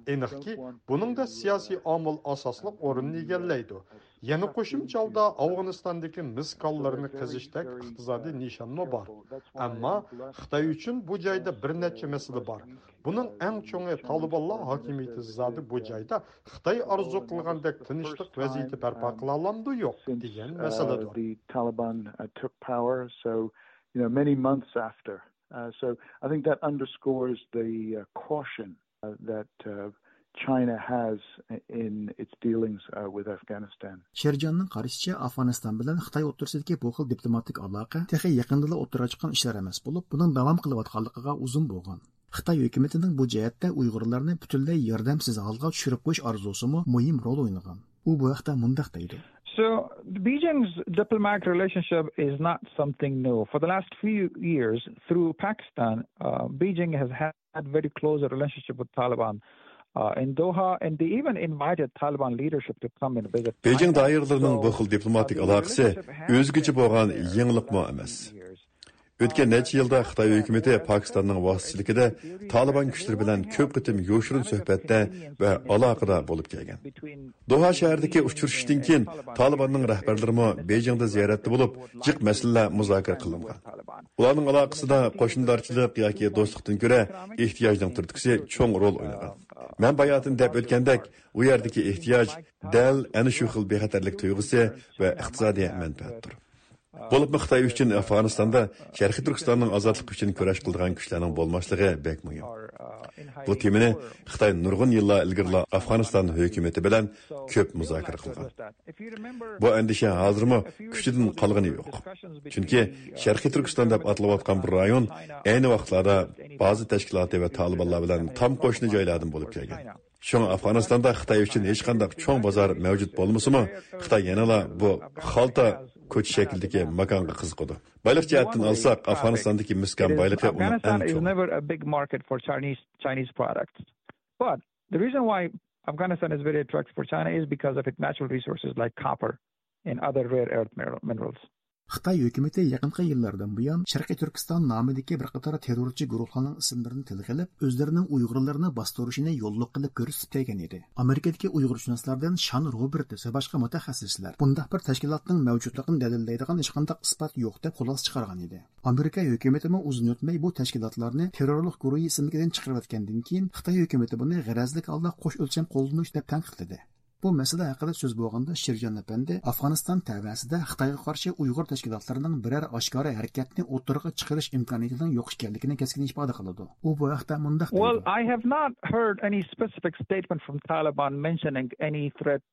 ئېنىقكى، بۇنىڭدا سىياسىي ئامىل ئاساسلىق ئورۇننى ئىگىلەيدۇ. يەنە قوشۇمچە ھالدا ئافغانىستاندىكى مىس كانلىرىنى قېزىشتەك ئىقتىسادىي نىشانمۇ بار. ئەمما خىتاي ئۈچۈن بۇ جايدا بىر نەچچە مەسىلە بار. بۇنىڭ ئەڭ چوڭى تالىبانلار ھاكىمىيىتى زادى بۇ جايدا خىتاي ئارزۇ قىلغاندەك تىنچلىق ۋەزىيىتى بەرپا قىلالامدۇ يوق دېگەن مەسىلىدۇر. The Taliban uh, took power, so you know many months after. Uh, so I think that underscores the uh, caution uh, that uh, China has in its dealings uh, with Afghanistan. شېرجاننىڭ قارىشىچە، ئافغانىستان بىلەن خىتاي ئوتتۇرىسىدىكى بۇ خىل دىپلوماتىك ئالاقە تېخى يېقىندىلا ئوتتۇرىغا چىققان ئىشلار ئەمەس بولۇپ، بۇنىڭ داۋام قىلىۋاتقانلىقىغا ئۇزۇن بولغان. خىتاي ھۆكۈمىتىنىڭ بۇ جەھەتتە ئۇيغۇرلارنى پۈتۈنلەي ياردەمسىز ھالغا چۈشۈرۈپ قويۇش ئارزۇسىمۇ مۇھىم رول ئوينىغان. ئۇ بۇ ھەقتە مۇنداق دەيدۇ. So Beijing's diplomatic relationship is not something new. For the last few years, through Pakistan, uh, Beijing has had very close relationship with Taliban uh, in Doha, and they even invited Taliban leadership to come and visit. بېيجىڭ دائىرىلىرىنىڭ بۇ خىل دىپلوماتىك ئالاقىسى ئۆزگىچە بولغان يېڭىلىقمۇ ئەمەس. ئۆتكەن نەچچە يىلدا خىتاي ھۆكۈمىتى پاكىستاننىڭ ۋاسىتىچىلىكىدە تالىبان كۈچلىرى بىلەن كۆپ قېتىم يوشۇرۇن سۆھبەتتە ۋە ئالاقىدە بولۇپ كەلگەن. دوھا شەھىرىدىكى ئۇچرىشىشتىن كېيىن تالىباننىڭ رەھبەرلىرىمۇ بېيجىڭدا زىيارەتتە بولۇپ، جىق مەسىلىلەر مۇزاكىرە قىلىنغان. ئۇلارنىڭ ئالاقىسىدا قوشنىدارچىلىق ياكى دوستلۇقتىن كۆرە ئېھتىياجنىڭ تۈرتكىسى چوڭ رول ئوينىغان. مەن باياتىن دەپ ئۆتكەندەك، ئۇ يەردىكى ئېھتىياج دەل ئەنە شۇ خىل بىخەتەرلىك تۇيغۇسى ۋە ئىقتىسادىي مەنپەئەتتۇر. بولۇپمۇ خىتاي ئۈچۈن ئافغانىستاندا شەرقىي تۈركىستاننىڭ ئازادلىقى ئۈچۈن كۈرەش قىلىدىغان كۈچلەرنىڭ بولماسلىقى بەك مۇھىم. بۇ تېمىنى خىتاي نۇرغۇن يىللار ئىلگىرىلا ئافغانىستان ھۆكۈمىتى بىلەن كۆپ مۇزاكىرە قىلغان. بۇ ئەندىشە ھازىرمۇ كۈچىدىن قالغىنى يوق. چۈنكى شەرقىي تۈركىستان دەپ ئاتىلىۋاتقان بۇ رايون ئەينى ۋاقىتلاردا بازا تەشكىلاتى ۋە تالىبانلار بىلەن تام قوشنا جايلاردىن بولۇپ كەلگەن. شۇڭا ئافغانىستاندا خىتاي ئۈچۈن ھېچقانداق چوڭ بازار مەۋجۇت بولمىسىمۇ، خىتاي يەنىلا بۇ خالتا كوچا شەكلىدىكى ماكانغا قىزىقىدۇ. بايلىق جەھەتتىن ئالساق، ئافغانىستاندىكى مىسكان بايلىقى ئۇنىڭ ئەڭ چوڭى. Never a big market for Chinese, Chinese products. But the reason why Afghanistan is very attractive for China is because of its natural resources like copper and other rare earth mineral-, minerals. خىتاي ھۆكۈمىتى يېقىنقى يىللاردىن بۇيان شەرقىي تۈركىستان نامىدىكى بىر قاتار تېررورچى گۇرۇھلارنىڭ ئىسىملىرىنى تىلغا ئېلىپ، ئۆزلىرىنىڭ ئۇيغۇرلىرىنى باستۇرۇشىنى يوللۇق قىلىپ كۆرسىتىپ كەلگەن ئىدى. ئامېرىكىدىكى ئۇيغۇرشۇناسلاردىن شان روبېرتس ۋە باشقا مۇتەخەسسىسلەر بۇنداق بىر تەشكىلاتنىڭ مەۋجۇتلۇقىنى دەلىللەيدىغان ھېچقانداق ئىسپات يوق دەپ خۇلاسە چىقارغان ئىدى. ئامېرىكا ھۆكۈمىتىمۇ ئۇزۇن ئۆتمەي بۇ تەشكىلاتلارنى تېررورلۇق گۇرۇھى ئىسىملىكىدىن چىقىرىۋەتكەندىن كېيىن، خىتاي ھۆكۈمىتى بۇنى غەرەزلىك ھالدا قوش ئۆلچەم قوللىنىش دەپ تەنقىدلىدى. بۇ مەسىلە ھەققىدە سۆز بولغاندا، شىرجان ئەپەندى ئافغانىستان تەۋەسىدە خىتايغا قارشى ئۇيغۇر تەشكىلاتلىرىنىڭ بىرەر ئاشكارا ھەرىكەتنى ئوتتۇرىغا چىقىرىش ئىمكانىيىتىنىڭ يوق ئىكەنلىكىنى كەسكىن ئىپادە قىلىدۇ. ئۇ بۇ ھەقتە مۇنداق دەيدۇ. Well, I have not heard any specific statement from Taliban mentioning any threat,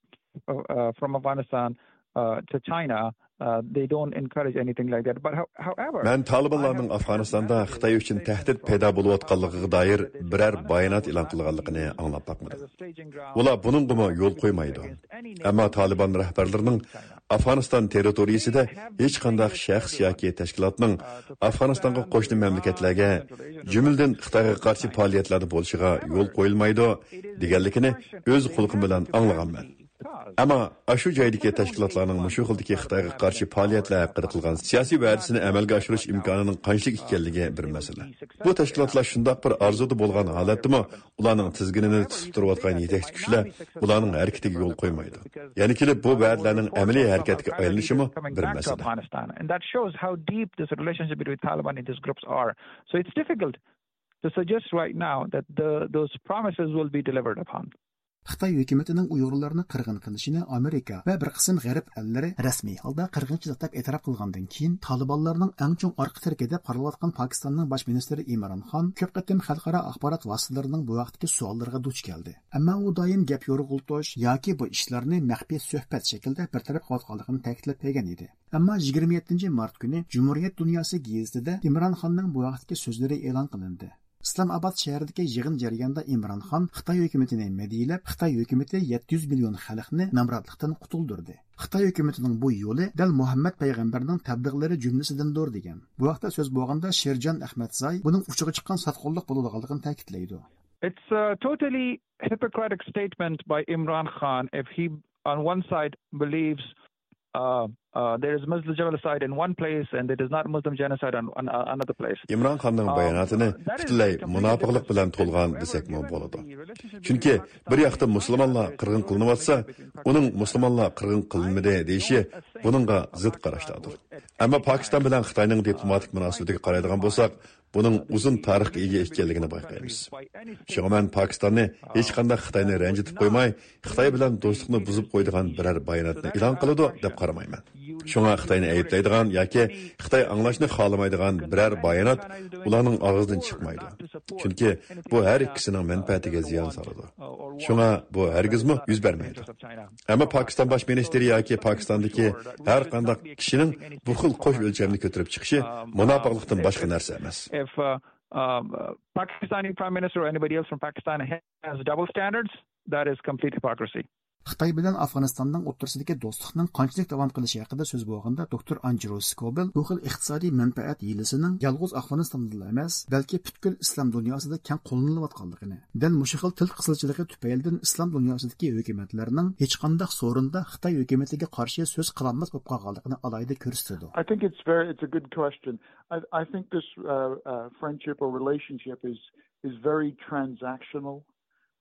uh, uh, from Afghanistan, uh, to China. Uh, they don't encourage anything like that. But how-, however, مەن تالىبانلارنىڭ ئافغانىستاندا خىتاي ئۈچۈن تەھدىت پەيدا بولۇۋاتقانلىقىغا دائىر بىرەر بايانات ئېلان قىلغانلىقىنى ئاڭلاپ باقمىدىم. ئۇلار بۇنىڭغىمۇ يول قويمايدۇ. ئەمما تالىبان رەھبەرلىرىنىڭ ئافغانىستان تېررىتورىيىسىدە ھېچقانداق شەخس ياكى تەشكىلاتنىڭ ئافغانىستانغا قوشنا مەملىكەتلەرگە، جۈملىدىن خىتايغا قارشى پائالىيەتلەردە بولۇشىغا يول قويۇلمايدۇ، دېگەنلىكىنى ئۆز قۇلىقىم بىلەن ئاڭلىغانمەن. ئەمما ئاشۇ جايدىكى تەشكىلاتلارنىڭ مۇشۇ خىلدىكى خىتايغا قارشى پائالىيەتلەر ھەققىدە قىلغان سىياسىي ۋەدىسىنى ئەمەلگە ئاشۇرۇش ئىمكانىنىڭ قانچىلىك ئىكەنلىكى بىر مەسىلە. بۇ تەشكىلاتلار شۇنداق بىر ئارزۇدا بولغان ھالەتتىمۇ، ئۇلارنىڭ تىزگىنىنى تۇتۇپ تۇرۇۋاتقان يېتەكچى كۈچلەر ئۇلارنىڭ ھەرىكىتىگە يول قويمايدۇ. يەنە كېلىپ بۇ ۋەدىلەرنىڭ ئەمەلىي ھەرىكەتكە ئايلىنىشىمۇ بىر مەسىلە. And that shows how deep this relationship between Taliban and these groups are. So it's difficult to suggest right now that the, those promises will be delivered upon. خىتاي ھۆكۈمىتىنىڭ ئۇيغۇرلارنى قىرغىن قىلىشىنى ئامېرىكا ۋە بىر قىسىم غەرب ئەللىرى رەسمىي ھالدا قىرغىنچىلىق دەپ ئېتىراپ قىلغاندىن كېيىن، تالىبانلارنىڭ ئەڭ چوڭ ئارقا تىرىكى دەپ قارىلىۋاتقان پاكىستاننىڭ باش مىنىستىرى ئىمران خان كۆپ قېتىم خەلقئارا ئاخبارات ۋاسىتىلىرىنىڭ بۇ ھەقتىكى سوئاللىرىغا دۇچ كەلدى. ئەمما ئۇ دائىم گەپ يورغىلىتىش ياكى بۇ ئىشلارنى مەخپىي سۆھبەت شەكلىدە بىر تەرەپ قىلىۋاتقانلىقىنى تەكىتلەپ كەلگەن ئىدى. ئەمما يىگىرمە يەتتىنچى مارت كۈنى جۇمھۇرىيەت دۇنياسى گېزىتىدە ئىمران خاننىڭ بۇ ھەقتىكى سۆزلىرى ئېلان قىلىندى. ئىسلام ئاباد شەھىرىدىكى يىغىن جەريانىدا ئىمران خان خىتاي ھۆكۈمىتىنى مەدھىيەلەپ، خىتاي ھۆكۈمىتى يەتتە يۈز مىليون خەلقنى نامراتلىقتىن قۇتۇلدۇردى. خىتاي ھۆكۈمىتىنىڭ بۇ يولى دەل مۇھەممەد پەيغەمبەرنىڭ تەبلىغلىرى جۈملىسىدىندۇر دېگەن. بۇ ھەقتە سۆز بولغاندا شىرجان ئەخمەتزاي بۇنىڭ ئۇچىغا چىققان ساتقۇنلۇق بولىدىغانلىقىنى تەكىتلەيدۇ. It's a totally hypocritic statement by Imran Khan if he, on one side, believes, uh, uh, there is Muslim genocide in one place and there is not Muslim genocide on, on, on another place. ئىمران خاننىڭ باياناتىنى پۈتۈنلەي مۇناپىقلىق بىلەن تولغان دېسەكمۇ بولىدۇ. چۈنكى بىر ياقتا مۇسۇلمانلار قىرغىن قىلىنىۋاتسا، ئۇنىڭ مۇسۇلمانلار قىرغىن قىلىنمىدى دېيىشى بۇنىڭغا زىت قاراشلاردۇر. ئەمما پاكىستان بىلەن خىتاينىڭ دىپلوماتىك مۇناسىۋىتىگە قارايدىغان بولساق، بۇنىڭ ئۇزۇن تارىخقا ئىگە ئىكەنلىكىنى بايقايمىز. شۇڭا مەن پاكىستاننى ھېچقانداق خىتاينى رەنجىتىپ قويماي، خىتاي بىلەن دوستلۇقنى بۇزۇپ قويىدىغان بىرەر باياناتنى ئېلان قىلىدۇ دەپ قارىمايمەن. شۇڭا خىتاينى ئەيىبلەيدىغان ياكى خىتاي ئاڭلاشنى خالىمايدىغان بىرەر بايانات ئۇلارنىڭ ئاغزىدىن چىقمايدۇ. چۈنكى بۇ ھەر ئىككىسىنىڭ مەنپەئەتىگە زىيان سالىدۇ. شۇڭا بۇ ھەرگىزمۇ يۈز بەرمەيدۇ. ئەمما پاكىستان باش مىنىستىرى ياكى پاكىستاندىكى ھەر قانداق كىشىنىڭ بۇ خىل قوش ئۆلچەمنى كۆتۈرۈپ چىقىشى مۇناپىقلىقتىن باشقا نەرسە ئەمەس. If, uh, um, uh, Pakistani Prime Minister or anybody else from Pakistan has double standards, that is complete hypocrisy. خىتاي بىلەن ئافغانىستاننىڭ ئوتتۇرىسىدىكى دوستلۇقنىڭ قانچىلىك داۋام قىلىشى ھەققىدە سۆز بولغاندا، دوكتور ئانجېلو سكوبېل بۇ خىل ئىقتىسادىي مەنپەئەت ھىيلىسىنىڭ يالغۇز ئافغانىستاندىلا ئەمەس، بەلكى پۈتكۈل ئىسلام دۇنياسىدا كەڭ قوللىنىلىۋاتقانلىقىنى، دەل مۇشۇ خىل تىل قىسىلچىلىقى تۈپەيلىدىن ئىسلام دۇنياسىدىكى ھۆكۈمەتلەرنىڭ ھېچقانداق سورۇندا خىتاي ھۆكۈمىتىگە قارشى سۆز قىلالماس بولۇپ قالغانلىقىنى ئالاھىدە كۆرسىتىدۇ. I think it's very, it's a good question. I, I think this, uh, uh, friendship or relationship is, is very transactional,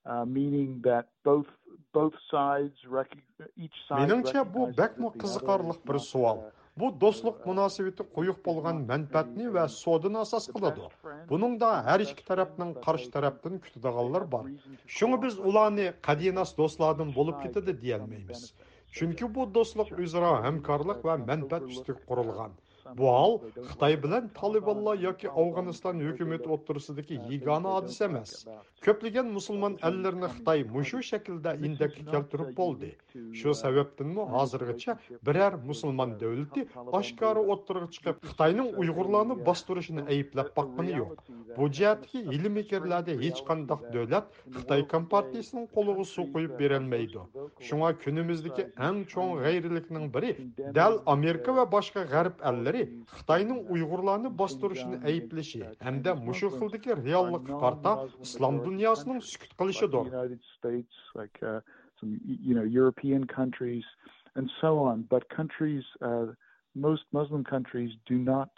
uh, meaning that both, both sides recog-, each side مېنىڭچە، بۇ recognizes بەكمۇ that the other قىزىقارلىق is بىر not, سوئال. Uh, بۇ دوستلۇق مۇناسىۋىتى قويۇق بولغان مەنپەئەتنى ۋە سودىنى ئاساس قىلىدۇ. بۇنىڭدا ھەر ئىككى تەرەپنىڭ قارشى تەرەپتىن كۈتىدىغانلار بار. شۇڭا بىز ئۇلارنى قەدىناس دوستلاردىن بولۇپ كېتىدۇ دېيەلمەيمىز. چۈنكى بۇ دوستلۇق، ئۆزئارا ھەمكارلىق ۋە مەنپەئەت ئۈستىگە قۇرۇلغان. بۇ ھال خىتاي بىلەن تالىبانلار ياكى ئافغانىستان ھۆكۈمىتى ئوتتۇرىسىدىكى يېگانە ھادىسە ئەمەس. كۆپلىگەن مۇسۇلمان ئەللىرىنى خىتاي مۇشۇ شەكىلدە ئىندەككە كەلتۈرۈپ بولدى. شۇ سەۋەبتىنمۇ ھازىرغىچە بىرەر مۇسۇلمان دۆلىتى ئاشكارا ئوتتۇرىغا چىقىپ، خىتاينىڭ ئۇيغۇرلارنى باستۇرۇشىنى ئەيىبلەپ باققىنى يوق. بۇ جەھەتتىكى ھىيلە-مىكىرلەردە ھېچقانداق دۆلەت خىتاي كومپارتىيىسىنىڭ قولىغا سۇ قۇيۇپ بېرەلمەيدۇ. شۇڭا كۈنىمىزدىكى ئەڭ چوڭ غەيرىيلىكنىڭ بىرى دەل ئامېرىكا ۋە باشقا غەرب ئەللىرى خىتاينىڭ ئۇيغۇرلارنى باستۇرۇشىنى ئەيىبلىشى ھەمدە مۇشۇ خىلدىكى رېئاللىققا قارىتا ئىسلام دۇنياسىنىڭ سۈكۈت قىلىشىدۇر. United States, like uh, some you know European countries, and so on. But countries, uh, most Muslim countries, do not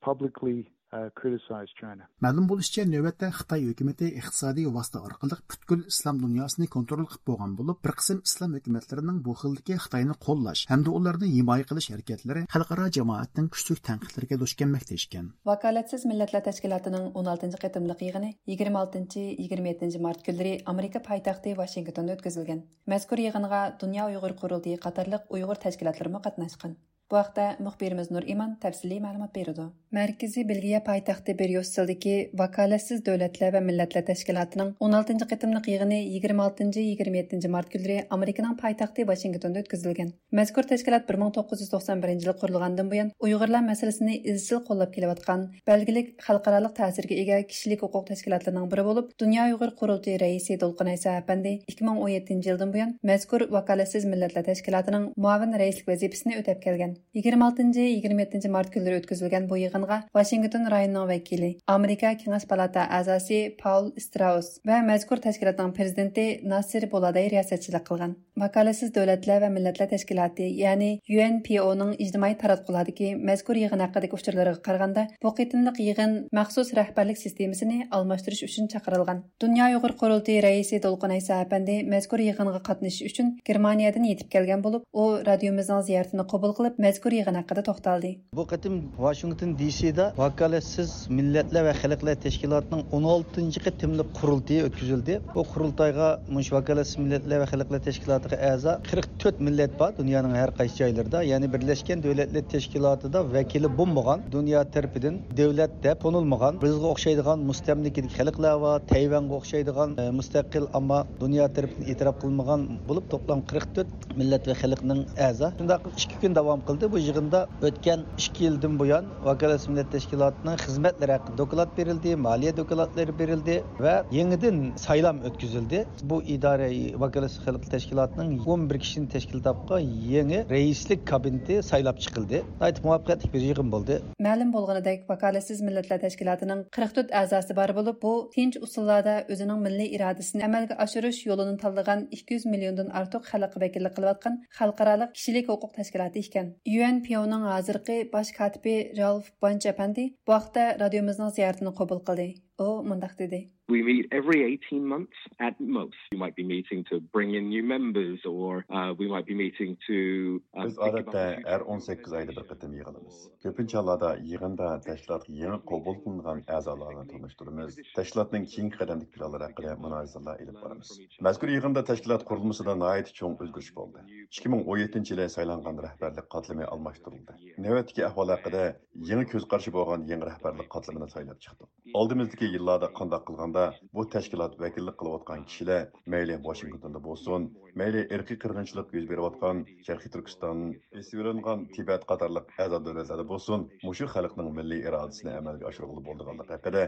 publicly uh, criticize China. مەلۇم بولۇشىچە، نۆۋەتتە خىتاي ھۆكۈمىتى ئىقتىسادىي ۋاسىتە ئارقىلىق پۈتكۈل ئىسلام دۇنياسىنى كونترول قىلىپ بولغان بولۇپ، بىر قىسىم ئىسلام ھۆكۈمەتلىرىنىڭ بۇ خىلدىكى خىتاينى قوللاش ھەمدە ئۇلارنى ھىمايە قىلىش ھەرىكەتلىرى خەلقئارا جامائەتنىڭ كۈچلۈك تەنقىدلىرىگە دۇچ كەلمەكتە ئىكەن. ۋاكالەتسىز مىللەتلەر تەشكىلاتىنىڭ ئون ئالتىنچى قېتىملىق يىغىنى يىگىرمە ئالتىنچى، يىگىرمە يەتتىنچى مارت كۈنلىرى ئامېرىكا پايتەختى ۋاشىنگتوندا ئۆتكۈزۈلگەن. مەزكۇر يىغىنغا دۇنيا ئۇيغۇر قۇرۇلتىيى قاتارلىق ئۇيغۇر تەشكىلاتلىرىمۇ قاتناشقان. بۇ ھەقتە مۇخبىرىمىز نۇرئىمان تەپسىلىي مەلۇمات بېرىدۇ. مەركىزى بېلگىيە پايتەختى بريۇسسېلدىكى ۋاكالەتسىز دۆلەتلەر ۋە مىللەتلەر تەشكىلاتىنىڭ ئون ئالتىنچى قېتىملىق يىغىنى يىگىرمە ئالتىنچى، يىگىرمە يەتتىنچى مارت كۈنلىرى ئامېرىكىنىڭ پايتەختى ۋاشىنگتوندا ئۆتكۈزۈلگەن. مەزكۇر تەشكىلات بىر مىڭ توققۇز يۈز توقسان بىرىنچى يىلى قۇرۇلغاندىن بۇيان، ئۇيغۇرلار مەسىلىسىنى ئىزچىل قوللاپ كېلىۋاتقان، بەلگىلىك خەلقئارالىق تەسىرگە ئىگە كىشىلىك ھوقۇق تەشكىلاتلىرىنىڭ بىرى بولۇپ، دۇنيا ئۇيغۇر قۇرۇلتىيى رەئىسى دولقۇن ئەيسا ئەپەندى ئىككى مىڭ ئون يەتتىنچى يىلدىن بۇيان مەزكۇر ۋاكالەتسىز مىللەتلەر تەشكىلاتىنىڭ مۇئاۋىن رەئىسلىك ۋەزىپىسىنى ئۆتەپ كەلگەن. يىگىرمە ئالتىنچى، يىگىرمە يەتتىنچى مارت كۈنلىرى ئۆتكۈزۈلگەن بۇ يىغىنغا ۋاشىنگتون رايونىنىڭ ۋەكىلى، ئامېرىكا كېڭەش پالاتا ئەزاسى پاول ئىستراۇس ۋە مەزكۇر تەشكىلاتنىڭ پىرېزىدېنتى ناسىر بولاداي رىياسەتچىلىك قىلغان. ۋاكالەتسىز دۆلەتلەر ۋە مىللەتلەر تەشكىلاتى، يەنى يۇ ئەن پى ئو نىڭ ئىجتىمائىي تاراتقۇلارىقى مەزكۇر يىغىن ھەققىدىكى ئۇچۇرلىرىغا قارىغاندا، بۇ قېتىملىق يىغىن مەخسۇس رەھبەرلىك سىستېمىسىنى ئالماشتۇرۇش ئۈچۈن چاقىرىلغان. دۇنيا ئۇيغۇر قۇرۇلتىيى رەئىسى دولقۇن ئەيسا ئەپەندى مەزكۇر يىغىنغا قاتنىشىش ئۈچۈن گېرمانىيەدىن يېتىپ كەلگەن بولۇپ، ئۇ رادىيومىزنىڭ زىيارىتىنى قوبۇل قىلىپ، مەزكۇر يىغىن ھەققىدە توختالدى. بۇ قېتىم ۋاشىنگتون دى سىدا ۋاكالەتسىز مىللەتلەر ۋە خەلقلەر تەشكىلاتىنىڭ ئون ئالتىنچى قېتىملىق قۇرۇلتىيى ئۆتكۈزۈلدى. بۇ قۇرۇلتايغا مۇشۇ ۋاكالەتسىز مىللەتلەر ۋە خەلقلەر تەشكىلاتىغا ئەزا قىرىق تۆت مىللەت بار دۇنيانىڭ ھەر قايسى جايلىرىدا. يەنى بىرلەشكەن دۆلەتلەر تەشكىلاتىدا ۋەكىلى بولمىغان، دۇنيا تەرىپىدىن دۆلەت دەپ تونۇلمىغان، بىزگە ئوخشايدىغان مۇستەملىكىدىكى خەلقلەر بار، تەيۋەنگە ئوخشايدىغان، ئە، مۇستەقىل، ئەمما دۇنيا تەرىپىدىن ئېتىراپ قىلمىغان بولۇپ، توپلام قىرىق تۆت مىللەت ۋە خەلقنىڭ ئەزا. شۇنداق ئىككى كۈن داۋام قىلدى. بۇ يىغىندا ئۆتكەن ئىككى يىلدىن بۇيان ۋاكالەتسىز مىللەت تەشكىلاتىنىڭ خىزمەتلىرى ھەققىدە دوكلات بېرىلدى، مالىيە دوكلاتلىرى بېرىلدى ۋە يېڭىدىن سايلام ئۆتكۈزۈلدى. بۇ ئىدارە ۋاكالەتسىز خەلق تەشكىلاتىنىڭ ئون بىر كىشىنى تەشكىل تاپقان يېڭى رەئىسلىك كابىنېتى سايلاپ چىقىلدى. ناھايىتى مۇۋەپپەقىيەتلىك بىر يىغىن بولدى. مەلۇم بولغىنىدەك، ۋاكالەتسىز مىللەتلەر تەشكىلاتىنىڭ قىرىق تۆت ئەزاسى بار بولۇپ، بۇ تىنچ ئۇسۇللاردا ئۆزىنىڭ مىللىي ئىرادىسىنى ئەمەلگە ئاشۇرۇش يولىنى تاللىغان ئىككى يۈز مىليوندىن ئارتۇق خەلققە ۋەكىللىك قىلىۋاتقان خەلقئارالىق كىشىلىك ھوقۇق تەشكىلاتى ئىكەن. يۇ ئەن پى ئو نىڭ ھازىرقى باش كاتىپى رالف بانچ ئەپەندى بۇ ھەقتە رادىيومىزنىڭ زىيارىتىنى قوبۇل قىلدى. ئۇ مۇنداق دېدى. We meet every eighteen months at most. We might be meeting to bring in new members, or uh, we might be meeting to. Uh, بىز ئادەتتە ھەر ئون سەككىز ئايدا بىر قېتىم يىغىلىمىز. كۆپىنچە ھاللاردا يىغىندا تەشكىلاتقا يېڭى قوبۇل قىلىنغان ئەزالارنى تونۇشتۇرىمىز، تەشكىلاتنىڭ كېيىنكى قەدەمدىكى پىلانلىرى ھەققىدە مۇنازىرىلەر ئېلىپ بارىمىز. مەزكۇر يىغىندا تەشكىلات قۇرۇلمىسىدا ناھايىتى چوڭ ئۆزگىرىش بولدى. ئىككى مىڭ ئون يەتتىنچى يىلى سايلانغان رەھبەرلىك قاتلىمى ئالماشتۇرۇلدى. نۆۋەتتىكى ئەھۋال ھەققىدە يېڭى كۆز قارىشى بولغان يېڭى رەھبەرلىك قاتلىمىنى سايلاپ چىقتۇق. ئالدىمىزدىكى يىللاردا قانداق قىلغاندا بۇ تەشكىلات ۋەكىللىك قىلىۋاتقان كىشىلەر مەيلى ۋاشىنگتوندا بولسۇن، مەيلى ئىرقىي قىرغىنچىلىق يۈز بېرىۋاتقان شەرقىي تۈركىستان، ئېسىۋېلىنغان تىبەت قاتارلىق ئەزا دۆلەتلەردە بولسۇن، مۇشۇ خەلقنىڭ مىللىي ئىرادىسىنى ئەمەلگە ئاشۇرغىلى بولىدىغانلىقى ھەققىدە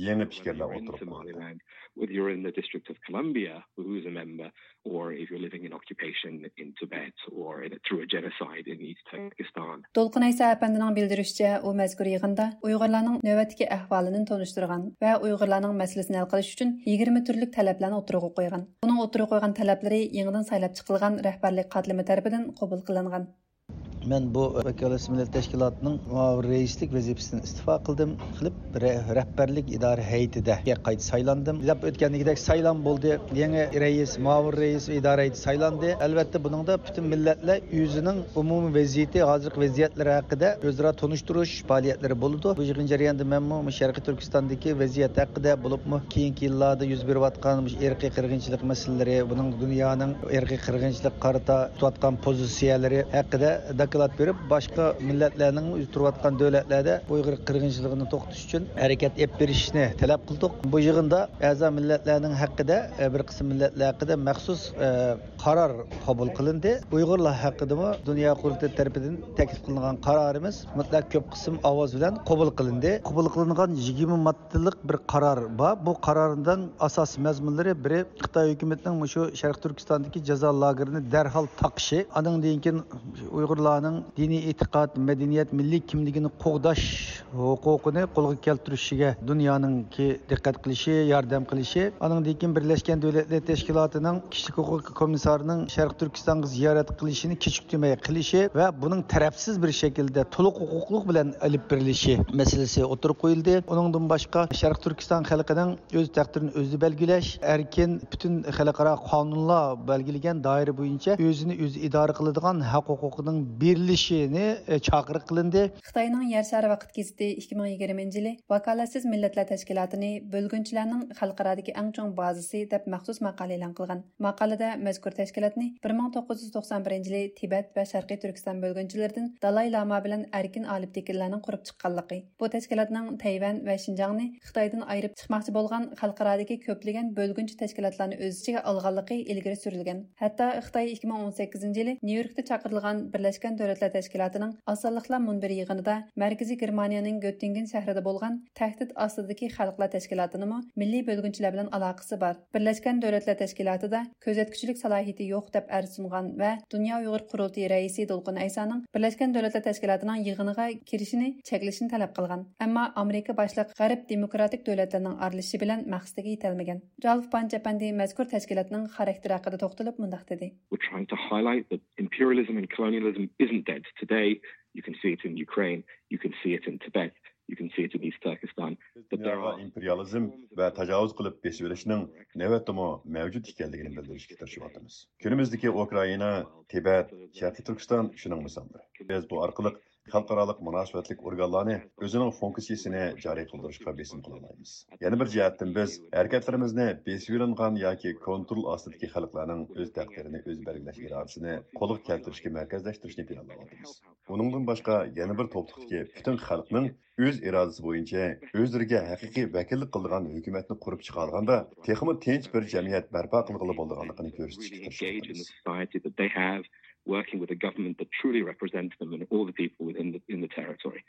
يېڭى پىكىرلەر ئوتتۇرىغا قويۇلدى. Whether you're in the District of Columbia, who's a member, or if you're living in occupation in Tibet or in, through a genocide in East Turkestan. دولقۇن ئەيسا ئەپەندىنىڭ بىلدۈرۈشىچە، ئۇ مەزكۇر يىغىندا ئۇيغۇرلارنىڭ نۆۋەتتىكى ئەھۋالىنى تونۇشتۇرغان ۋە ئۇيغۇرلارنىڭ مەسىلىسىنى ھەل قىلىش ئۈچۈن يىگىرمە تۈرلۈك تەلەپلەرنى ئوتتۇرىغا قويغان. ئۇنىڭ ئوتتۇرىغا قويغان تەلەپلىرى يېڭىدىن سايلاپ چىقىلغان رەھبەرلىك قاتلىمى تەرىپىدىن قوبۇل قىلىنغان. مەن بۇ ۋاكالەتسىز مىللەت تەشكىلاتىنىڭ مۇئاۋىن رەئىسلىك ۋەزىپىسىدىن ئىستېفا قىلدىم. قىلىپ، رە-، رەھبەرلىك ئىدارە ھەيئىتىگە قايتا سايلاندىم. دەپ ئۆتكەندىكىدەك سايلام بولدى. يېڭى رەئىس، مۇئاۋىن رەئىس ۋە ئىدارە ھەيئىتى سايلاندى. ئەلۋەتتە، بۇنىڭدا پۈتۈن مىللەتلەر ئۆزىنىڭ ئومۇمىي ۋەزىيىتى، ھازىرقى ۋەزىيەتلىرى ھەققىدە ئۆزئارا تونۇشتۇرۇش پائالىيەتلىرى بولىدۇ. بۇ يىغىن جەريانىدا مەنمۇ مۇشۇ شەرقىي تۈركىستاندىكى ۋەزىيەت ھەققىدە، بولۇپمۇ كېيىنكى يىللاردا يۈز بېرىۋاتقان مۇشۇ ئىرقىي قىرغىنچىلىق مەسىلىلىرى، بۇنىڭ دۇنيانىڭ ئىرقىي قىرغىنچىلىققا قارىتا تۇتۇۋاتقان پوزىتسىيەلىرى ھەققىدە دوكلات بېرىپ، باشقا مىللەتلەرنىڭ ئۆزى تۇرۇۋاتقان دۆلەتلەردە ئۇيغۇر قىرغىنچىلىقىنى توختىتىش ئۈچۈن ھەرىكەت ئېلىپ بېرىشىنى تەلەپ قىلدۇق. بۇ يىغىندا ئەزا مىللەتلەرنىڭ ھەققىدە، بىر قىسىم مىللەتلەر ھەققىدە مەخسۇس قارار قوبۇل قىلىندى. ئۇيغۇرلار ھەققىدىمۇ دۇنيا قۇرۇلتىيى تەرىپىدىن تەكلىپ قىلىنغان قارارىمىز مۇتلەق كۆپ قىسىم ئاۋاز بىلەن قوبۇل قىلىندى. قوبۇل قىلىنغان يىگىرمە ماددىلىق بىر قارار بار. بۇ قارارنىڭ ئاساسىي مەزمۇنلىرى، بىرى، خىتاي ھۆكۈمىتىنىڭ مۇشۇ شەرقىي تۈركىستاندىكى جازا لاگېرىنى دەرھال تاقىشى، ئانىڭدىن كېيىن ئۇيغۇرلارنىڭ دىنىي ئېتىقاد، مەدەنىيەت، مىللىي كىملىكىنى قوغداش ھوقۇقىنى قولغا كەلتۈرۈشىگە دۇنيانىڭكى دىققەت قىلىشى، ياردەم قىلىشى، ئانىڭدىن كېيىن بىرلەشكەن دۆلەتلەر تەشكىلاتىنىڭ كىشىلىك ھوقۇق كومىسسارىنىڭ شەرقىي تۈركىستانغا زىيارەت قىلىشىنى كېچىكتۈرمەي قىلىشى ۋە بۇنىڭ تەرەپسىز بىر شەكىلدە تولۇق ھوقۇقلۇق بىلەن ئېلىپ بېرىلىشى مەسىلىسى ئوتتۇرىغا قويۇلدى. ئۇنىڭدىن باشقا، شەرقىي تۈركىستان خەلقىنىڭ ئۆز تەقدىرىنى ئۆزى بەلگىلەش، ئەركىن، پۈتۈن خەلقئارا قانۇنلار بەلگىلىگەن دائىرە بويىچە ئۆزىنى ئۆزى ئىدارە قىلىدىغان ھەق ھوقۇقىنىڭ بېرىلىشىنى، ئە، چاقىرىق قىلىندى. خىتاينىڭ يەر شارى ۋاقىت گېزىتى ئىككى مىڭ يىگىرمىنچى يىلى ۋاكالەتسىز مىللەتلەر تەشكىلاتىنى بۆلگۈنچىلەرنىڭ خەلقئارادىكى ئەڭ چوڭ بازىسى دەپ مەخسۇس ماقالە ئېلان قىلغان. ماقالىدە مەزكۇر تەشكىلاتنى بىر مىڭ توققۇز يۈز توقسان بىرىنچى يىلى تىبەت ۋە شەرقىي تۈركىستان بۆلگۈنچىلىرىدىن دالاي لاما بىلەن ئەركىن ئالىپ تېكىنلەرنىڭ قۇرۇپ چىققانلىقى، بۇ تەشكىلاتنىڭ تەيۋەن ۋە شىنجاڭنى خىتايدىن ئايرىپ چىقماقچى بولغان خەلقئارادىكى كۆپلىگەن بۆلگۈنچى تەشكىلاتلارنى ئۆز ئىچىگە ئالغانلىقى ئىلگىرى سۈرۈلگەن. ھەتتا خىتاي ئىككى مىڭ ئون سەككىزىنچى يىلى نيۇ يوركتا چاقىرىلغان بىرلەشكەن دۆلەتلەر تەشكىلاتىنىڭ ئاز سانلىقلار مۇنبىرى يىغىنىدا مەركىزىي گېرمانىيەنىڭ گۆتتىنگېن شەھىرىدە بولغان تەھدىت ئاستىدىكى خەلقلەر تەشكىلاتىنىمۇ مىللىي بۆلگۈنچىلەر بىلەن ئالاقىسى بار، بىرلەشكەن دۆلەتلەر تەشكىلاتىدا كۆزەتكۈچىلىك سالاھىيىتى يوق دەپ ئەرز سۇنغان ۋە دۇنيا ئۇيغۇر قۇرۇلتىيى رەئىسى دولقۇن ئەيسانىڭ بىرلەشكەن دۆلەتلەر تەشكىلاتىنىڭ يىغىنىغا كىرىشىنى چەكلىشىنى تەلەپ قىلغان. ئەمما ئامېرىكا باشلىق غەرب دېموكراتىك دۆلەتلىرىنىڭ ئارىلىشىشى بىلەن مەقسىتىگە يېتەلمىگەن. رالف پانچ ئەپەندى مەزكۇر تەشكىلاتنىڭ خاراكتېرى ھەققىدە توختىلىپ مۇنداق دېدى. We're trying to highlight that imperialism and colonialism isn't dead today. You can see it in Ukraine. You can see it in Tibet. You can see it in East Turkestan. بىز دۇنياغا ئىمپېرىيالىزم ۋە تاجاۋۇز قىلىپ بېسىۋېلىشنىڭ نۆۋەتتىمۇ مەۋجۇت ئىكەنلىكىنى بىلدۈرۈشكە تىرىشىۋاتىمىز. كۈنىمىزدىكى ئۇكرائىنا، تىبەت، شەرقىي تۈركىستان شۇنىڭ مىساللىرى. بىز بۇ ئارقىلىق خەلقئارالىق مۇناسىۋەتلىك ئورگانلارنى ئۆزىنىڭ فۇنكسىيىسىنى جارى قىلدۇرۇشقا بېسىم قىلالايمىز. يەنە بىر جەھەتتىن، بىز ھەرىكەتلىرىمىزنى بېسىۋېلىنغان ياكى كونترول ئاستىدىكى خەلقلەرنىڭ ئۆز تەقدىرىنى ئۆزى بەلگىلەش ئىرادىسىنى قولغا كەلتۈرۈشكە مەركەزلەشتۈرۈشنى پىلانلاۋاتىمىز. ئۇنىڭدىن باشقا، يەنە بىر توپلۇقتىكى پۈتۈن خەلقنىڭ ئۆز ئىرادىسى بويىچە ئۆزلىرىگە ھەقىقىي ۋەكىللىك قىلىدىغان ھۆكۈمەتنى قۇرۇپ چىقالىغاندا، تېخىمۇ تىنچ بىر جەمئىيەت بەرپا قىلغىلى بولىدىغانلىقىنى كۆرسىتىشكە تىرىشىۋاتىمىز. Working with a government that truly represents them and all the people within the, in the territory.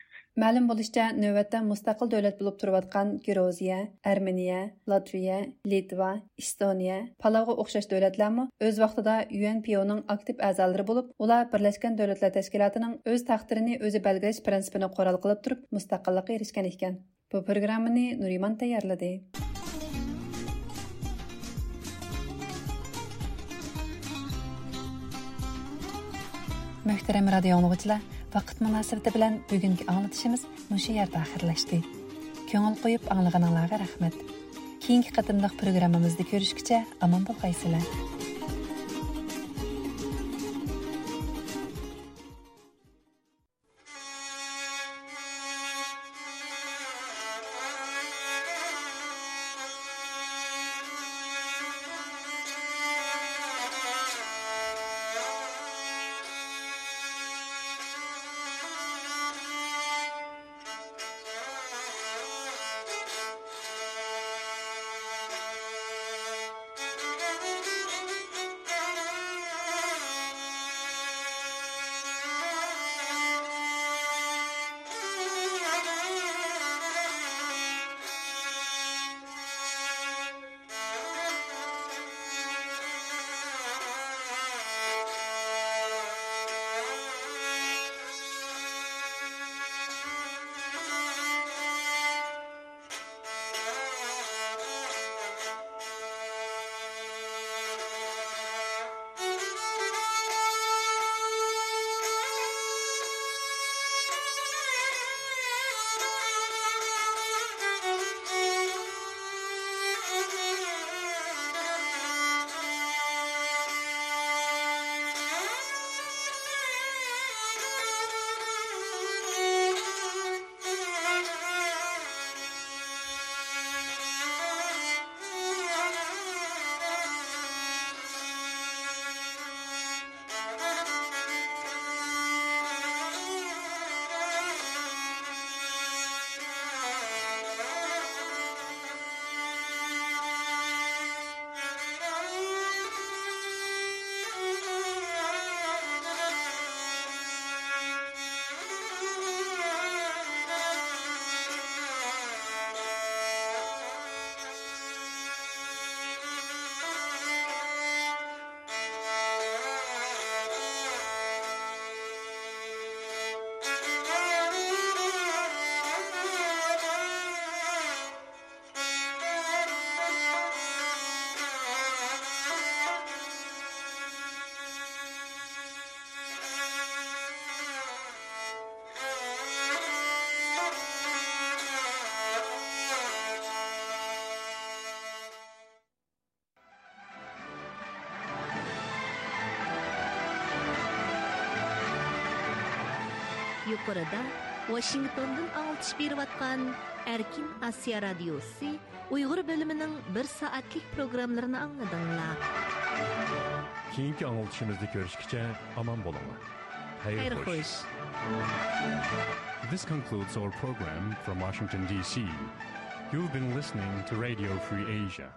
مەلۇم بولۇشىچە، نۆۋەتتە مۇستەقىل دۆلەت بولۇپ تۇرۇۋاتقان گرۇزىيە، ئەرمېنىيە، لاتۋىيە، لىتۋا، ئېستونىيە، پالاۋغا ئوخشاش دۆلەتلەرمۇ ئۆز ۋاقتىدا يۇ ئېن پى ئونىڭ ئاكتىپ ئەزالىرى بولۇپ، ئۇلار بىرلەشكەن دۆلەتلەر تەشكىلاتىنىڭ ئۆز تەقدىرىنى ئۆزى بەلگىلەش پىرىنسىپىنى قورال قىلىپ تۇرۇپ، مۇستەقىللىققا ئېرىشكەن ئىكەن. بۇ پروگراممىنى نۇرىمان تەييارلىدى. مۆھتەرەم رادىيو ئاڭلىغۇچىلار، ۋاقىت مۇناسىۋىتى بىلەن بۈگۈنكى ئاڭلىتىشىمىز مۇشۇ يەردە ئاخىرلاشتى. كۆڭۈل قويۇپ ئاڭلىغىنىڭلارغا رەھمەت. كېيىنكى قېتىملىق پروگراممىمىزدا كۆرۈشكىچە ئامان بولغايسىلەر. يۇقىرىدا ۋاشىنگتوندىن ئاڭلىتىش بېرىۋاتقان ئەركىن ئاسىيا رادىيوسى ئۇيغۇر بۆلۈمىنىڭ بىر سائەتلىك پروگراممىلىرىنى ئاڭلىدىڭلار. كېيىنكى ئاڭلىتىشىمىزدا كۆرۈشكىچە ئامان بولۇڭلار. خەير خەير خوش. خوش. This concludes our program from Washington, D C. You've been listening to Radio Free Asia.